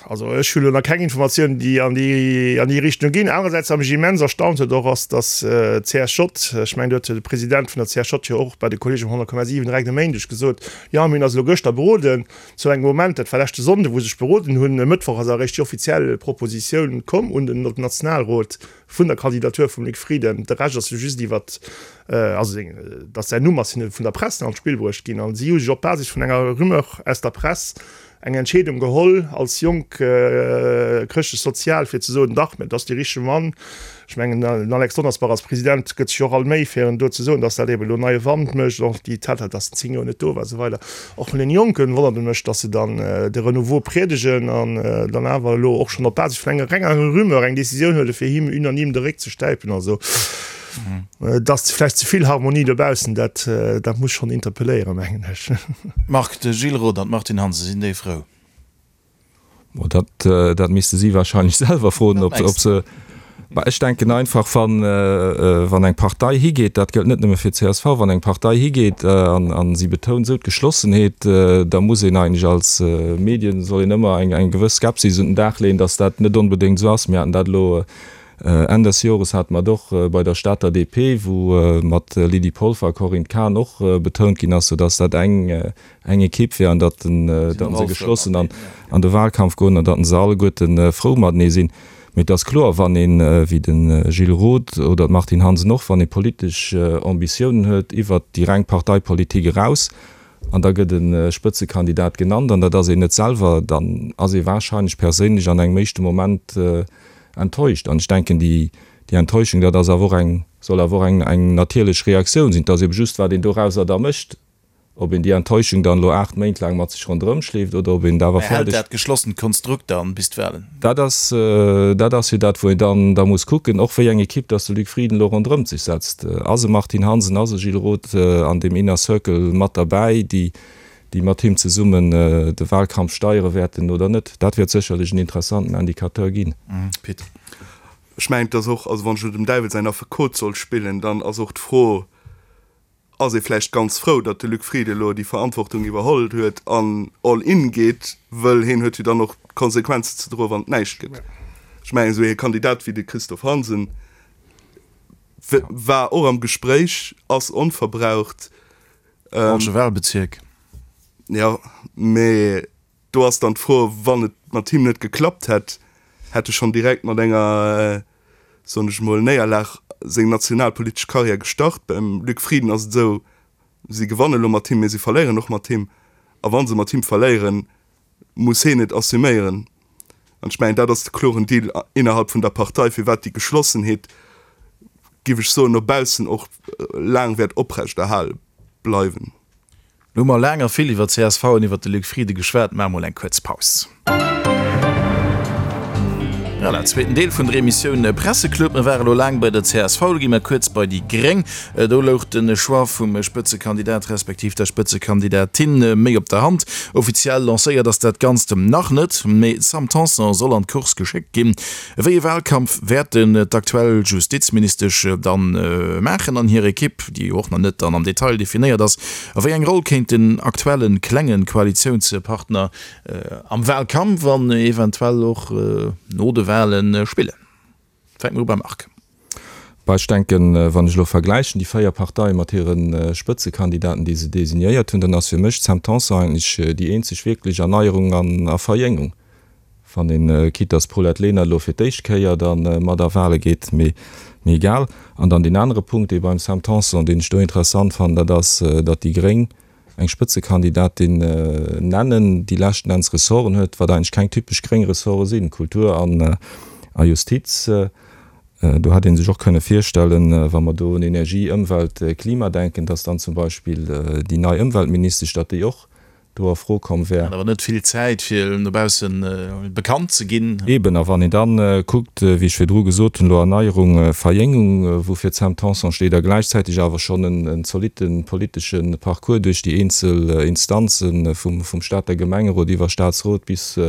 Also ech hu lo nach keng Informatiounen, déi an déi an déi Richtung ginn. Anerersäits, wat mech immens erstaunt huet och, ass, datt d'CSJ, ech mengen, do huet de President vun der CSJ jo och bei de Kolleegen vum 100,7 direkt e Méindeg gesot, jo mir hunn eis elo gëschter beroden, zu engem Moment, dat war leschte Sonnde wou se sech beroden hunn, e Mëttwoch ass eréischt déi offiziell Propositioun komm un den Nationalrot vun der Kandidatur vum Luc Frieden. De Rescht ass jo just iwwert, also seng, datt säin Numm ass hinne vun der Press an d'Spill bruecht ginn an si hu sech op Basis vun enger Rumeur aus der Press eng Entscheedung geholl als jonk Chrëschtlech-Sozial fir ze soen, dach, mä et ass dee richtege Mann. Ech mengen, den Alex Donnersbach als President gëtt sech och all Méi fir en do ze soen, datt dat eben elo neie Wand mécht, och déi Tatsaach, datt en 10 Joer net do war a sou weider. Och vun den Jonken wonnert et mech, datt se dann de Renouveau priedegen an dann awer elo och schonn op Basis vun enger renger Rumeur eng Decisioun huele fir him unanime de Réck ze stäipen. Also et ass vläicht ze vill Harmonie dobaussen, dat dat muss schonn interpelléieren, mengen ech. Marc, de Gilles Roth an d'Martine Hansen, sinn déi frou? Bon, dat, dat misste si wahrscheinlech selwer froen, ob, ob se. Mä ech denken einfach, wann, wann eng Partei higeet, dat gëllt net nëmme fir d'CSV, wann eng Partei higeet an, an si betount esou d'Geschlossenheet, da muss een eigentlech als Medien, soll een ëmmer eng, eng gewëss Skepsis un den Dag leeën, datt dat net onbedéngt esou ass. Mir haten dat elo Enn des Jores hate mer et och bei der Stater DP, wou mat Lydie Polfer a Corinne Cahen och betount ginn ass, soudatt dat eng, eng Ekipp wär an datt se geschlossen an de Wahlkampf goen an datt se alleguerte frou matenee sinn. Mee et ass kloer, wann een, wéi de Gilles Roth oder d'Martine Hansen och, wann ee politesch Ambitiounen huet iwwert déi reng Parteipolitik eraus an da gëtt e Spëtzekandidat genannt an dat ass een net selwer, dann ass ee wahrscheinlech perséinlech an engem éischte Moment enttäuscht. An ech denken, déi Enttäuschung, dat ass awer och eng, soll awer och eng natierlech Reaktioun sinn. Et ass ebe just, wat een dorauser da mécht. Ob een déi Enttäuschung dann elo 8 Méint laang mat sech ronderëm schleeft oder ob een et awer Mä hält fäerdeg. dat geschlossent Konstrukt dann bis d'Wahlen? Dat ass, dat ass jo dat, wou een dann da muss kucken, och wéi eng Ekipp dass de Luc Frieden elo ronderëmt sech setzt. Ass e Martine Hansen, ass e Gilles Roth an deem Inner Circle mat derbäi, déi, déi mat him zesummen de Wahlkampf steiere wäerten oder net? Dat wäert sécherlech en interessanten Indicateur ginn. Pit. Ech mengen, et ass och, also wann ech elo dem Däiwel säin Affekot soll spillen, dann ass och d'Fro, ass ee vläicht ganz frou, datt de Luc Frieden elo déi Verantwortung iwwerholl huet an all in geet, wëll heen huet jo dann och d'Konsequenzen ze droen, wann et näischt gëtt. Ech mengen, esou ee Kandidat wéi de Christophe Hansen war och am Gespréich, ass onverbraucht. Falsche Wahlbezierk. Jo, mee Do ass dann d'Fro, wann et mat him net geklappt hätt, hätt e schonn direkt mat enger, soen ech emol, Néierlag seng nationalpolitesch Karriär gestart. Beim Luc Frieden ass et esou, si gewanne lo mat him, mee si verléieren och mat him. A wa se mat him verléieren, muss heen et assuméieren. An ech mengen, dat ass de kloren Deal innerhalb vun der Partei, firwat déi Geschlossenheet, giff ech soen, no baussen och laang wäert oprechterhale bleiwen. Lo hu mer laang a vill iwwer csv an iwwer de Luc Frieden geschwat. Maache mol eng kuerz Paus. Voilà, zweeten Deel vun der Emissioun Presseclub. Mir ware lo laang bei der csv, lo gi mer kuerz bei déi Gréng. Do louch de Choix vum Spëtzekandidat respektiv der Spëtzekandidatin méi op der Hand. Offiziell lancéiert ass dat Ganzt nach net, mee d'Sam Tanson soll an d'Course geschéckt ginn. Wéi e Wahlkampf wäerten d'aktuell Justizministesch dann maachen an hir Ekipp, déi jo och nach net dann am Detail definéiert ass? A wéi eng Roll kéint den aktuelle klenge Koalitiounspartner am Wahlkampf an eventuell och no de Wahle spillen? Fänke mer u beim Marc. Bah, ech denken, wann ech elo vergläichen déi 4 Parteie mat hire Spëtzekandidaten, déi se designéiert hunn, dann ass fir mech d'Sam Tanson eigentlech déi eenzeg wierklech Erneierung an a Verjéngung. Wann een, quitte dass d'Paulette Lenert elo fir d'éischt Kéier da mat a Wahle geet, mee egal. An dann deen anere Punkt, dee beim Sam Tanson, deen ech do interessant fannen, dat ass, datt déi Gréng eng Spëtzekandidatin nennen, déi leschten Enns Ressorten huet, wat eigentlech keng typesch gréng Ressorte sinn, Kultur an a Justiz. Do hätt ee sech och kënne virstellen, wa mer do un Energie, Ëmwelt, Klima denken, datt dann zum Beispill déi nei Ëmweltministesch, datt déi och do a Fro komm wär. Hat awer net vill Zäit, fir no bausse bekannt ze ginn. Eben, a wann een da kuckt, wéi ech virdru gesot hunn, elo Erneierung, Verjéngung, woufir d'Sam Tanson steet, a gläichzäiteg awer schonn en zolitte politesche Parcours duerch déi eenzel Instanze vum Stater Gemengerot iwwer Staatsrot bis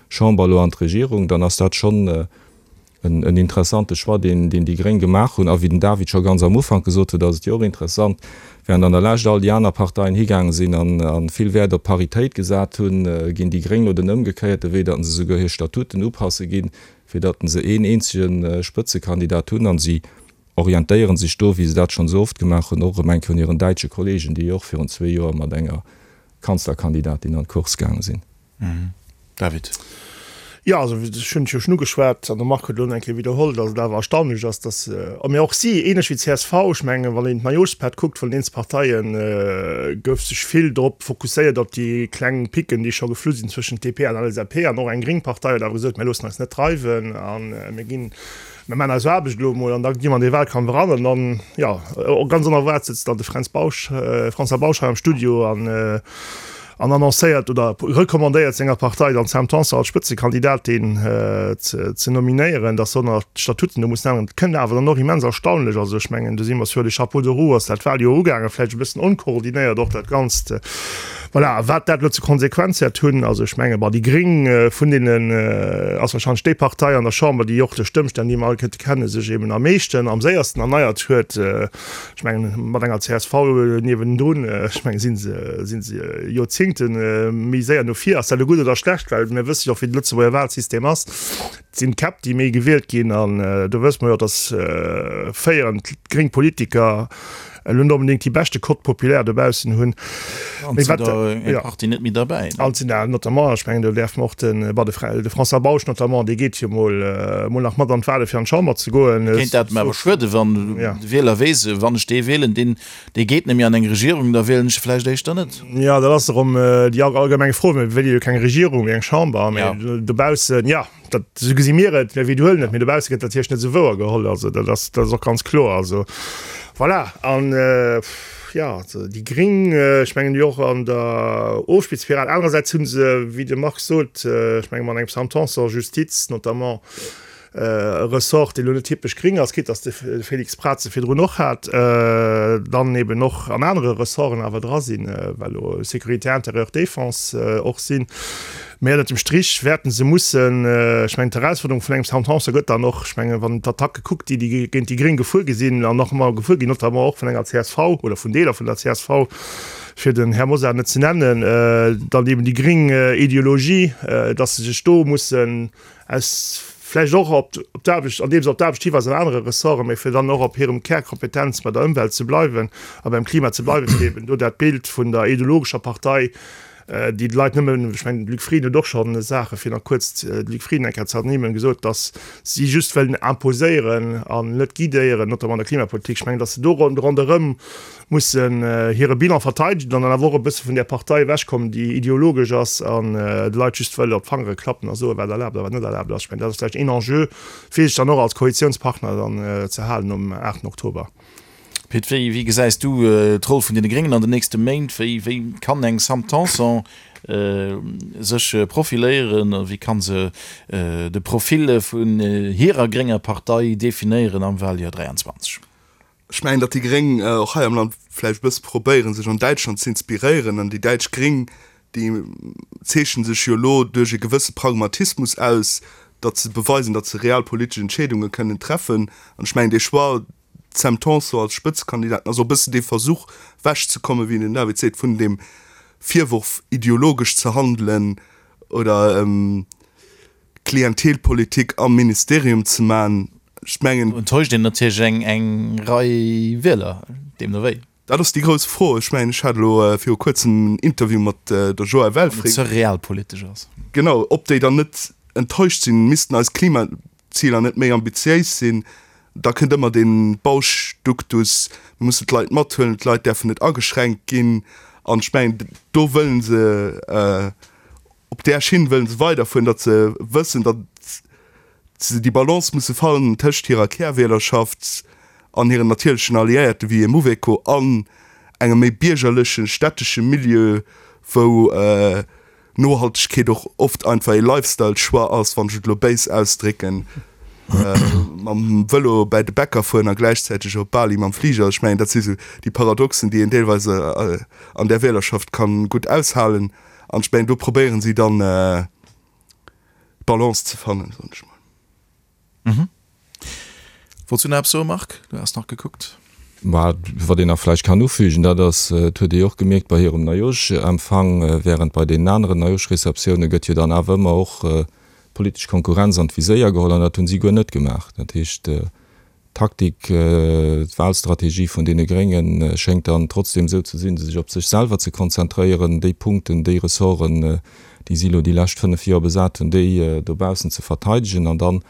Chamber elo an d'Regierung, dann ass dat schonn. en interessante Choix, deen déi Gréng gemaach hunn. A wéi den David scho ganz am Ufank gesot huet, ass et jo och interessant, während an der Lescht all déi aner Parteien higaange sinn a vill Wäert op Paritéit gesat hunn, ginn déi Gréng elo den ëmgekéierte Wee, datt se souguer hir Statuten upasse ginn, fir datt se een eenzege Spëtzekandidat hunn. A si orientéiere sech do, wéi se dat schonn esou oft gemaach hunn, och erëm eng Kéier un hiren däitsche Kollegen, déi jo och virun zwee Joer mat enger Kanzlerkandidatin an d'Course gaange sinn. David. Jo, also ech hunn et jo schonn ugeschwat an de Marc huet elo nach eng Kéier widderholl, datt et awer erstaunlech ass, datt, a mee och si, ähnlech wéi d'CSV, ech mengen, wann een d'Neijooschpaart kuckt vun den eenzel Parteien, gouf sech vill drop fokusséiert op déi kleng Picken, déi scho geflu sinn zwëschent DP an LSAP. An och eng gréng Partei huet awer gesot, mir loossen eis net dreiwen a mir ginn, mir maachen eis Aarbecht elo emol an da gi mer an dee Wahlkampf eran. An dann, jo, ganz onerwaart sëtzt dann de Fränz Bausch, François Bausch hei am Studio an, an annoncéiert oder recommandéiert senger Partei dann d'Sam Tanson als Spëtzekandidatin ze nominéieren, datt se nach d'Statuten do mussen änneren. Dat kënnt awer dann och immens erstaunlech. Also ech mengen, do si mer sur les chapeaux de roue ass dat Wahljoer ugaangen, vläicht e bëssen onkoordinéiert och dat Ganzt. Voilà, a wat dat elo ze Konsequenz wäert hunn, also ech menge bon, déi Gréng vun deenen ass wahrscheinlech déi Partei an der Chamber, déi och duerch d'Ëmstänn, déi mer all kënnte kennen, sech eben am meeschten, am séiersten erneiert huet. Ech mengen, mat enger csv niewendrun, ech mengen, si se, si se Joerzingte méi séier no vir. Ass dat elo gutt oder schlecht? Well mir wësse jo och, wéi de Lëtzebuerger Wahlsystem ass. Et sinn d'Käpp, déi méi gewielt ginn. An do wësse mer jo, datt féierend gréng Politiker elo net onbedéngt déi beschte Cote populaire dobaussen hunn. An sinn der eng Partie net méi derbäi. An sinn der notamment, ech mengen, do däerfe mer och de, bon, de François Bausch notamment, dee geet jo mol, mol nach mat an d'Wahle fir an d'Chamber ze goen. Kéint dat awer schueden, wann de Wieler weess, wann ech dee wielen, deen, dee geet net méi an eng Regierung, da wielen ech e vläicht éischter net. Jo, dat ass erëm déi allgemeng Fro. Mir wéile jo keng Regierung, mee eng Chamber. Mee dobaussen, jo. Dat, esou gesi mir et, mir widderhuelen et, mee dobausse gëtt dat natierlech net esou wouer geholl. Also dat ass, dat ass och ganz kloer. Also voilà. An, jo, also déi Gring, ech mengen, déi och an der Ofspielspiral. Anerersäits hu se, wéi de Marc sot, ech menge mat engem Sam Tanson, Justiz notamment, e Ressort, dee lo net typesch gring ass, quitte dass de Félix Braz se virdrun och hat, dann eben och an anere Ressorten awer dra sinn, well elo Sécurité intérieure, Défense och sinn. Mä ënnert dem Strich wäerten se mussen, ech mengen d'Erausforderung vun engem Sam Tanson gëtt dann och, ech mengen wann een d'Attacke kuckt, déi déi géint déi Gréng gefuer gi sinn an nach ëmmer gefuer ginn, notamment och vun enger csv oder vun Deeler vun der csv, fir den Här Mosar net ze nennen, dann eben déi gréng Ideologie, datt se sech do mussen aus vläicht och op d'Aarbecht, andeem se op d'Aarbecht hiweisen an anere Ressorten, mä fir dann och op hirem Kärkompetenz bei der Ëmwelt ze bleiwen a beim Klima ze bleiwen, fir eben do dat Bild vun der ideologescher Partei déi d'Leit nëmmen, ech mengen, de Luc Frieden huet och schonn Saache, fir nach kuerz de Luc Frieden eng Kéier ze ernimmen, gesot, datt si just wëllen imposéieren an net guidéieren, notamment an der Klimapolitik. Ech mengen, datt se do ronderëm mussen hire Bilan verteidegen an dann awer och e bësse vun där Partei ewechkommen, déi ideologesch ass an de Leit just wëll op d'Fangere klappen a soen, wat erlaabt a wat net erlaabt ass. Ech mengen, dat ass vläicht een Enjeu, fir sech dann och als Koalitiounspartner dann ze halen nom 8 Oktober. Pit, wéi wéi gesäis du d'Roll vun deene Gréngen an den nächste Méint? Wéi wéi kann eng Sam Tanson sech profiléieren? Wéi kann se de Profil vun hirer grénger Partei definéieren am Wahljoer 23? Ech mengen, datt déi Gréng och hei am Land vläicht e bësse probéieren, sech an Däitschland z'inspiréieren. An déi däitsch Gréng, déi zeechnen sech jo elo duerch e gewësse Pragmatismus aus, datt se beweisen, datt se realpolitesch Entscheedunge kënnen treffen. An ech mengen, dee Choix, D'Sam Tanson als Spëtzekandidaten ass och e bëssen dee Versuch wechzekommen, wéi den David seet, vun deem Virworf ideologesch ze handelen oder Klientelpolitik am Ministerium ze man. Ech mengen. Do enttäuscht een natierlech eng eng Rei Wieler, deemno wéi. Dat ass déi grouss Fro. Ech mengen, ech hat elo viru kuerzem en Interview mat der Joëlle Welfring. Wann et ze realpolitesch ass. Genau, ob déi dann net enttäuscht sinn, missten eis Klimaziler net méi ambitiéis sinn? Da kënnt ëmmer dee Bausch-Duktus, mir mussen d'Leit mathuelen, d'Leit däerfen net ageschränkt ginn. An ech mengen, do wëllen se, op där Schinn wëllen se weiderfueren, datt se wëssen, datt se déi Balance musse fannen tëscht hirer Kärwielerschaft an hiren natierlechen Alliéierte wéi e Mouveco an engem méi biergerlechen, stättesche Milieu, wou Nohaltegkeet och oft einfach ee Lifestyle-Choix ass, wann ech et elo béis ausdrécken, mam Vëlo bäi de Bäcker fueren a gläichzäiteg op Bali mam Fliger. Ech mengen, dat si sou déi Paradoxen, déi een deelweis an där Wielerschaft ka gutt aushalen. An ech mengen, do probéieren si dann d'Balance ze fannen, soen ech mol. Wollts du nach eppes soen, Marc? Du has nach gekuckt. Mä wat een nach vläicht kann ufügen, dat ass, et huet ee jo och gemierkt bei hirem Neijoschempfang, während bei deenen aneren Neijoschreceptioune gëtt jo dann awer ëmmer och d'politesch Konkurrenz an d'Viséier geholl, an dat hunn si guer net gemaach. Dat heescht, d'Taktik, d'Wahlstrategie vun deene Grénge schéngt dann trotzdem esou ze sinn, sech op sech selwer ze konzentréieren, déi Punkten, déi Ressorten, déi si elo déi lescht 5 Joer besat hunn, déi dobaussen ze verteidegen an dann,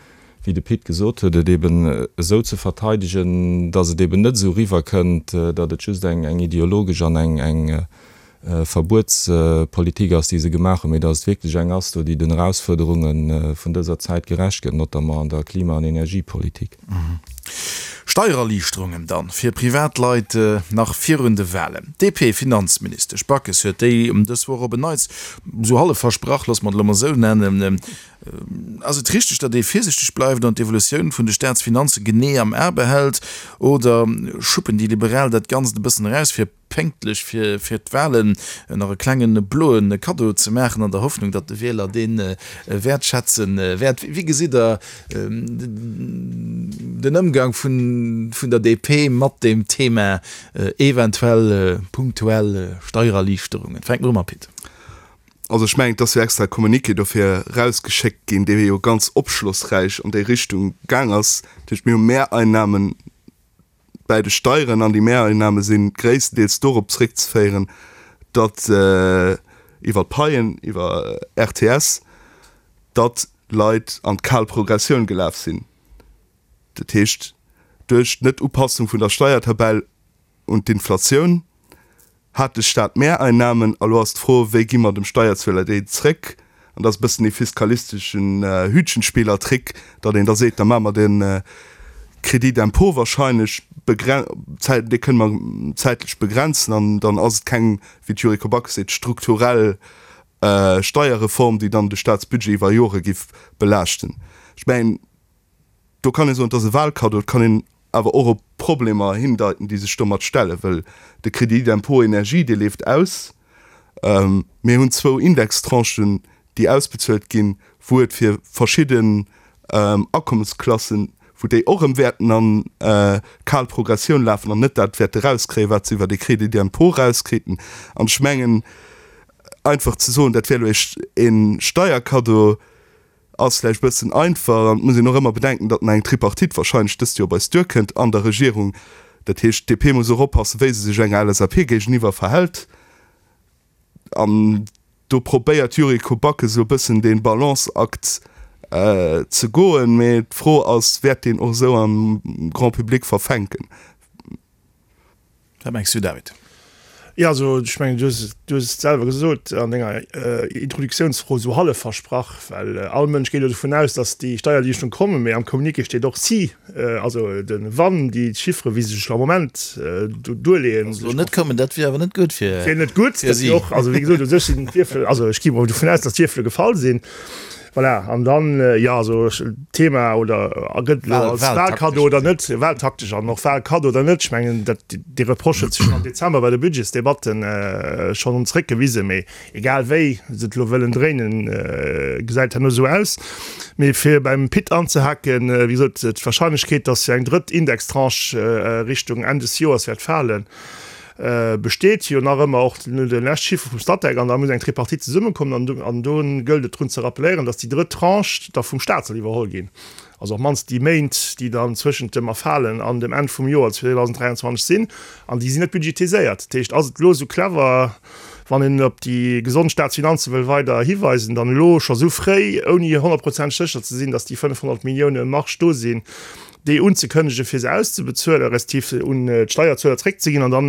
wéi de Pit gesot huet, et eben esou ze verteidegen, datt et eben net esou eriwwerkënnt, datt et just eng ideologesch an eng Verbuetspolitik ass, déi se gemaach hunn, mee datt et wierklech eng ass do, déi den Erausfuerderunge vun dëser Zäit gerecht gëtt, notamment an der Klima an Energiepolitik. Steiererliichterungen dann fir Privatleit nach virun de Wahlen. D'DP-Finanzministesch Backes huet déi dës Woch op en Neits esou hallef versprach, loosse mer et elo mol esou nennen. Ass et richteg, datt ee virsichteg bleift an d'Evolutioun vun de Staatsfinanze genee am A behält, oder schuppen déi Liberal dat Ganzt e bëssen eraus, fir pénktlech fir d'Wahlen nach e klenge bloe Kaddo ze maachen, an der Hoffnung, datt de Wieler dee wäertschätze wäert? Wéi gesitt Der den Ëmgang vun der DP mat deem Thema eventuell punktuell Steiererliichterungen? Fänke mer u mam Pit. Also ech mengen, et ass jo extra e Communiqué dofir erausgeschéckt ginn, dee jo ganz opschlossräich an déi Richtung gaang ass. Dat heescht, mir hu Mehreinnahmen bäi de Steieren an déi Mehreinnahme si gréisstendeels dorop zréckzeféieren, datt iwwer d'Paien, iwwer RTS, datt Leit an d'kal Progressioun gelaf sinn. Dat heescht, duerch d'Net-Upassung vun der Steiertabell un d'Inflatioun hat de Staat Mehreinnahmen. A lo ass d'Fro, Wéi gi mer dem Steierzueler déi zréck? An dat ass e bëssen dee fiskalisteschen Hütchenspielertrick, datt een da seet, da maache mer de Crédit d'impôt wahrscheinlech, dee kënne mer zäitlech begrenzen an dann ass et keng, wéi d'Yuriko Backes seet, strukturell Steierreform, déi dann de Staatsbudget iwwer Jore giff belaaschten. Ech mengen, Do kann ee soen, et ass e Wahlkaddo. Et kann een awer och op Problemer hindeiten, déi sech domat stellen, well de Crédit d'impôt énergie, dee leeft aus. Mir hunn zwou Indextranchen, déi ausbezuelt ginn, wou et fir verschidden Akommesklassen, wou déi och erëm wäerten an kal Progressioun lafen an net dat wäerte rauskréien, wat se iwwer dee Crédit d'impôt rauskriiten. An ech mengen, einfach ze soen, dat wär elo e Steierkaddo, Ass vläicht bëssen einfach an et muss een och ëmmer bedenken, datt nach eng Tripartite wahrscheinlech dëst Joer bei eis duerkënnt an der Regierung. Dat heescht, d'DP muss och oppassen, wéi se sech enger LSAP géigeniwwer verhält. An do probéiert d'Yuriko Backes elo bëssen dee Balanceakt ze goen. Mee d'Fro ass, Wäert deen och esou am Grand public verfänken? Wat mengs du, David? Jo, also ech mengen, du hues et, du hues et selwer gesot an denger Introduktiounsfro, esou hallef versprach, well all Mënsch geet jo dovun aus, datt déi Steiererliichterung kommen, mee am Communiqué steet och si, also de wann déi Chiffere wéi se sech am Moment do duerleeën. Wa se elo net kommen, dat wier awer net gutt fir si. Wier net gutt, dat wier och, also wéi gesot, u sech sinn d'Wierfel, also ech gi mol dovun aus, datt d'Wierfele gefall sinn. Voilà, an dann, jo, also Thema oder gëtt elo als Wahlkaddo oder net, wahltaktesch an och Wahlkaddo oder net, ech mengen, dat, dee Reproche huet sech schonn am Dezember bei de Budgetsdebatten schonn zréckgewisen, mee egal wéi se et elo wëllen dréinen, gesäit herno esou aus. Mee fir beim Pit anzehaken, wéi gesot, d'Wahrscheinlechkeet, datt eng drëtt Indextranche Richtung Enn des Joers wäert falen, besteet jo nach ëmmer, och no de lescht Chiffre vum Statec, an da muss eng Tripartite zesummekommen an do, an do gëllt et drun ze rappelléieren, datt déi drëtt Tranche da vum Stat soll iwwerholl ginn, also op d'mannst déi Méint, déi dann zwëschent dem Erfalen an dem Enn vum Joer 2023 sinn, an déi sinn net budgetiséiert. Dat heescht, ass et elo esou clever, wann een op déi gesond Staatsfinanze wëll weider hiweisen, dann elo scho esou fréi, ouni honnertprozenteg sécher ze sinn, datt déi 500 Millioune Marge do sinn, déi unzekënnegen, fir se auszebezuelen, respektiv se un d'Steierzueler zréckzeginn an dann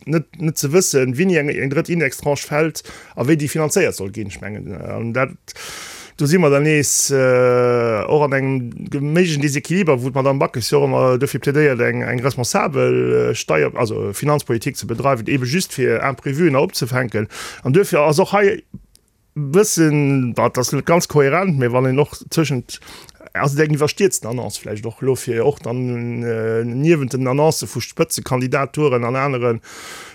net net ze wëssen, wéini eng eng drëtt Indextranche fält a wéi déi finanzéiert soll ginn. Ech mengen, an dat, do si mer dann nees och an engem méiglechen Desequiliber, wou d'Madame Backes jo och ëmmer dofir plädéiert, eng eng responsabel Steier-, also Finanzpolitik ze bedreiwen, eebe just fir Imprévuen opzefänken. An duerfir ass och hei, Bëssen, dat ass net ganz kohärent, mä wann een och tëschent, ass et eng iwwerstierzten Annonce vläicht och elo, fir och dann niewent den Annoncë vu Spëtzekandidaturen an anere.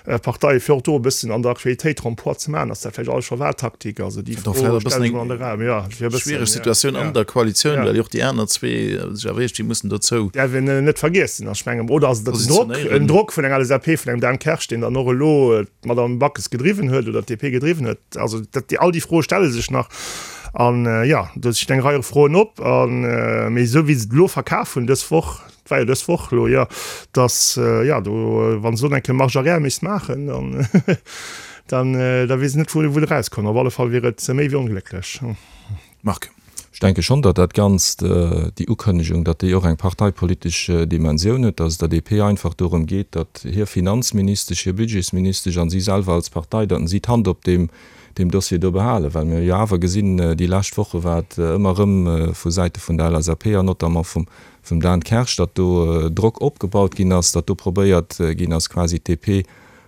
Parteien, fir och do e bëssen an der Aktualitéit Remploi ze maachen. Ass dat vläicht alles scho Wahltaktik? Also déi Fro stellen ech mol an de Raum. Jo, fir e bëssen, Schwiereg Situatioun an der Koalitioun, well jo och déi aner zwee sech awer iergendwéi mussen dozou. Däerf een net vergiessen. Ech mengen, oder ass et en Drock, en Drock vun enger LSAP, vun engem Dan Kersch, deen dann och elo d'Madame Backes gedriwwen huet oder d'DP gedriwwen huet? Also dat, all déi Froe stelle sech nach. An jo, do stinn eng Rei Froen op. An, mee esou wéi se et elo verkaf hunn dës Woch, Et war jo dës Woch elo, jo, dass, jo, do, wa se elo eng Kéier Marche arrière misst maachen, dann, dann, da weess ech net, wou, wou de erauskomm. Op alle Fall wier et méi wéi onglécklech. Marc. Ech denke schonn, datt dat Ganzt, déi Ukënnegung, datt déi och eng parteipolitesch Dimensioun huet, datt et der DP einfach dorëm geet, datt hir Finanzministesch, hir Budgetsministesch an si selwer als Partei, datt si d'Hand op deem, deem Dossier do behalen, well mir jo awer gesinn, déi lescht Woche war et ëmmer erëm vu Säite vun der LSAP an notamment vum, vum Dan Kersch, datt do Drock opgebaut ginn ass, datt do probéiert ginn ass, quasi d'DP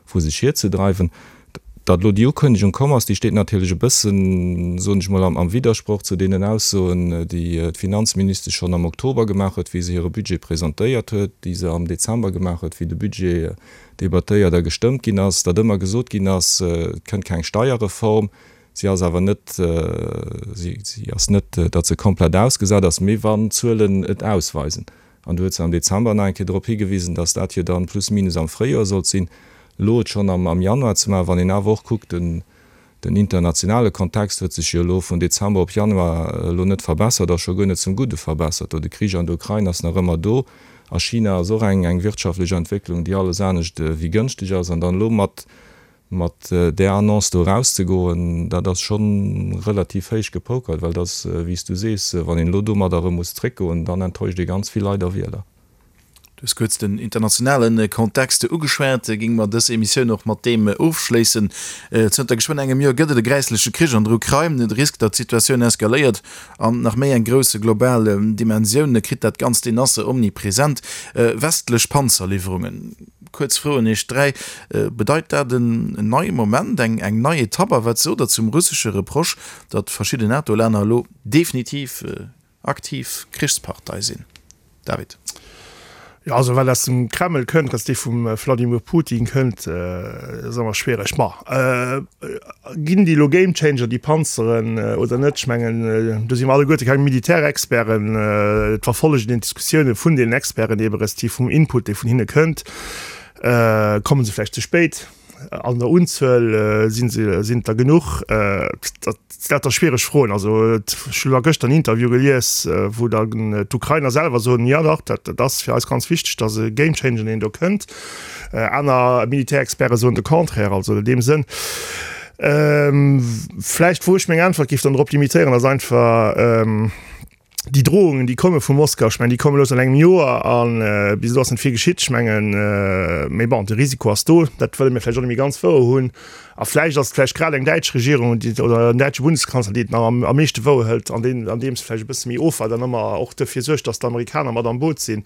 vu sech hierzedreiwen. Datt elo déi Ukënnegung komm ass, déi steet natierlech e bëssen, soen ech mol, am Widdersproch zu deenen Aussoen, déi d'Finanzministesch schonn am Oktober gemaach huet, wéi se hire Budget presentéiert huet, déi se am Dezember gemaach huet, wéi de Budget debattéiert a gestëmmt ginn ass, datt ëmmer gesot ginn ass, et kënnt keng Steierreform. Si ass awer net, si ass net, datt se komplett ausgesat ass, mee wann d'Zuelen et ausweisen, an do huet se am Dezember nach eng Kéier drop higewisen, datt dat jo dann plus minus am Fréijoer sollt sinn, elo et schonn am Januar ze maachen, wann een awer och kuckt, den den internationale Kontext huet sech jo elo vun Dezember op Januar elo net verbessert a scho guer net zum Gudde verbessert. Do de Krich an der Ukrain ass nach ëmmer do, a China ass och eng eng wirtschaftlech Entwécklung, déi alles anescht wéi gënschteg ass, an dann elo mat Mat där Annonce do erauszegoen, dat ass scho relativ héich gepokert, well et ass, wéi s du sees, wann een elo domadder erëm muss zréckgoen, dann enttäuscht ee ganz vill Leit a Wieler. Du hues kuerz den internationale Kontext ugeschwat. Géinge mer dës Emissioun och mat deem ofschléissen. Zënter geschwënn engem Joer gëtt et e gräissleche Krich an der Ukrain. De Risk, datt d'Situatioun eskaléiert an nach méi eng grouss global Dimensioun kritt, dat Ganzt, deen ass omnipresent. Westlech Panzerliwwerungen. Kuerz Fro un Iech 3, Bedeit dat en neie Moment, eng nei Etapp? A wat sot Der zum russesche Reproche, datt verschidden NATO-Länner elo definitiv aktiv Krichspartei sinn? David. Jo, also wat aus dem Kreml kënnt, dass dee vum Vladimir Putin kënnt, ass ëmmer schwiereg. Ma ginn déi elo Gamechanger, déi Panzeren, oder net? Ech mengen, do si mer alleguerte keng Militärexperten. Et verfollegen een d'Diskussioune vun deenen Experten ebe respektiv vum Input, dee vun hinne kënnt. Komme se vläicht ze spéit? An der Unzuel si se, sinn et der genuch? Dat sinn lauter schwiereg Froen. Also ech hunn elo gëschter en Interview gelies, wou dann d'Ukrainer selwer soen, jo dach, dat ass fir eis ganz wichteg, datt e Gamechanger, deen do kënnt. Aner Militärexperte soen de Contraire. Also an deem Sënn, vläicht wou ech meng Äntwert géif dann drop limitéieren, ass einfach, déi Drohungen, déi komme vu Moskau, ech mengen, déi komme lo säit engem Joer a bis elo ass net vill geschitt. Ech mengen, mee bon, de Risiko ass do, dat wëlle mir vläicht och net méi ganz wouer hunn. A vläicht ass et vläicht grad eng däitsch Regierung, déi, oder en däitsche Bundeskanzler, déi et nach am am meeschte wouer hëlt, an deen, andeems e vläicht e bësse méi ofwaart an ëmmer och dofir suergt, datt d'Amerikaner mat am Boot sinn.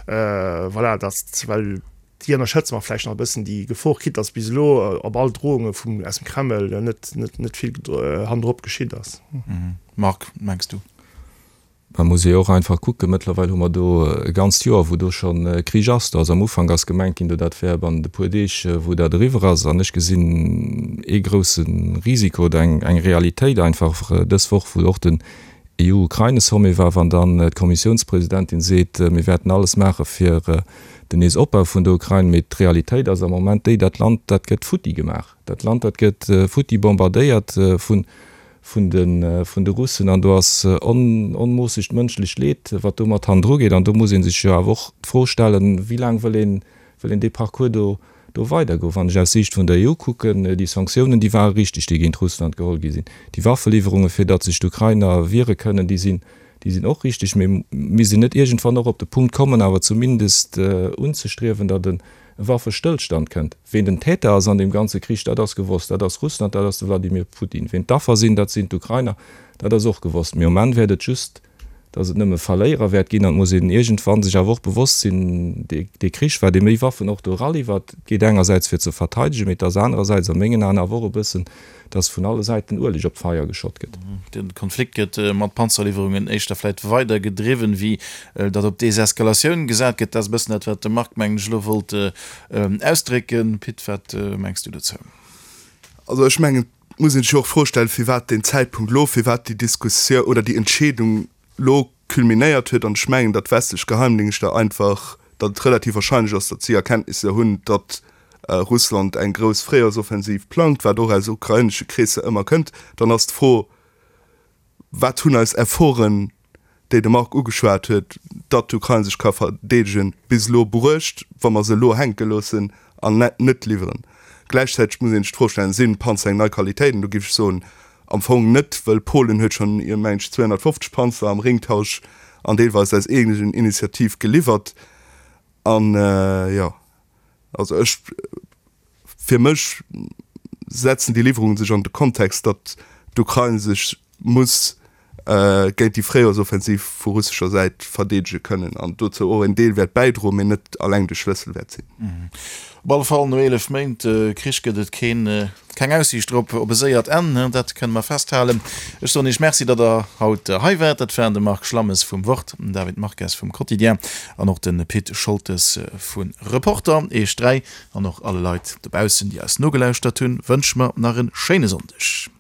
Voilà, datt, well déi ënnerschätze mer vläicht nach e bëssen, déi Gefor, quitte datt bis elo op all Drohunge vum, aus dem Kreml net, net, net vill hannendrop geschitt ass. Marc, mengs du? Mä muss ee jo och einfach kucken, mëttlerweil hu mer do e ganzt Joer, wou do scho Krich ass. Do ass am Ufank ass gemengt ginn, do dat wär bannent e puer Deeg, wou dat eriwwer ass. An ech gesinn ee grousse Risiko oder eng Realitéit einfach dës Woch, wou och den EU-Ukraine-Sommet war, wann dann d'Kommissiounspresidentin seet, mir wäerten alles maache fir den Neesopbau vun der Ukrain. Mee d'Realitéit ass am Moment déi, dat Land, dat gëtt futti gemaach. Dat Land, dat gëtt futti bombardéiert vun vun de vun de Russen an do ass onmoossegt mënschlecht Leed, wat do mat hannendru geet. An do muss ee sech jo awer och d'Fro stellen, wéi laang wëll een wëll een dee Parcours do do weidergoen. Wann ech aus Siicht vun der EU kucken, déi Sanktiounen, déi ware richteg, déi géint Russland geholl gi sinn. Déi Waffeliwwerunge fir datt sech d'Ukrainer wiere kënnen, déi sinn déi sinn och richteg. Mee misst een net iergendwann och op de Punkt kommen, awer zumindest unzestriewen, datt e Waffestëllstand kënnt. Ween den Täter ass an deem ganze Krich, dat ass gewosst, dat ass Russland, dat ass de Wladimir Putin. Ween d'Affer sinn, dat sinn d'Ukrainer, dat ass och gewosst. Mee um Enn wäert et just. Datt et nëmme Verléierer wäert ginn. An et muss een iergendwann sech awer och bewosst sinn, dee Krich, wat ee méi Waffen och do eraliwwert, et geet engersäits fir ze verteidegen, mee et ass anerersäits a mengen Aen awer och e bëssen, datt vun alle Säiten Ueleg op d'Feier geschott gëtt. De Konflikt gëtt mat Panzerliwwerungen éischter vläit weider gedriwwen, wéi datt op Deseskalatioun gesat gëtt. Dat ass e bëssen dat, wat de Marc, mengen ech, elo wollt ausdrécken. Pit, wat mengs du dozou? Also ech mengen, Et muss een sech jo och d'Fro stellen, firwat deen Zäitpunkt elo, firwat déi Diskussioun oder déi Entscheedung elo culminéiert huet. An ech mengen, datt westlech Geheimdingschter einfach, datt et relativ wahrscheinlech ass, datt si Erkenntnisser hunn, datt Russland eng grouss Fréijoersoffensiv plangt, wat och aus ukrainesche Kreesser ëmmer kënnt. Dann ass d'Fro, Wat hunn eis Efforten, déi de Marc ugeschwat huet, datt d'Ukrain sech ka verdeedegen, bis elo bruecht, wa mer se elo hänke loossen an net liwweren? Gläichzäiteg muss een sech d'Fro stellen, Sinn d'Panzer eng nei Qualitéit? An do géif ech soen, am Fong net, wëll Polen huet schonn, mengen ech, 250 Panzer am Ringtausch an deelweis aus eegenen Initiativ geliwwert. An, jo, also ech, fir mech setzen déi Liwwerungen sech an de Kontext, datt d'Ukrain sech muss géint déi Fréijoersoffensiv vu russescher Säit verdeedege kënnen an dozou och en Deel wäert bäidroen, mee net alleng de Schlëssel wäert sinn. Op alle Fall, no 11 Méint Krich gëtt et keen Keng Aussiicht drop op e séiert Enn, dat kënne mer festhalen. Ech soen Iech Merci, datt Der haut hei waart. Dat waren de Marc Schlammes vum Wort, den David Marques vum Quotidien an och de Pit Scholtes vu Reporter. Iech 3 an och alle Leit dobaussen, déi eis nogelauschtert hunn, wënsche mer nach e schéine Sonndeg.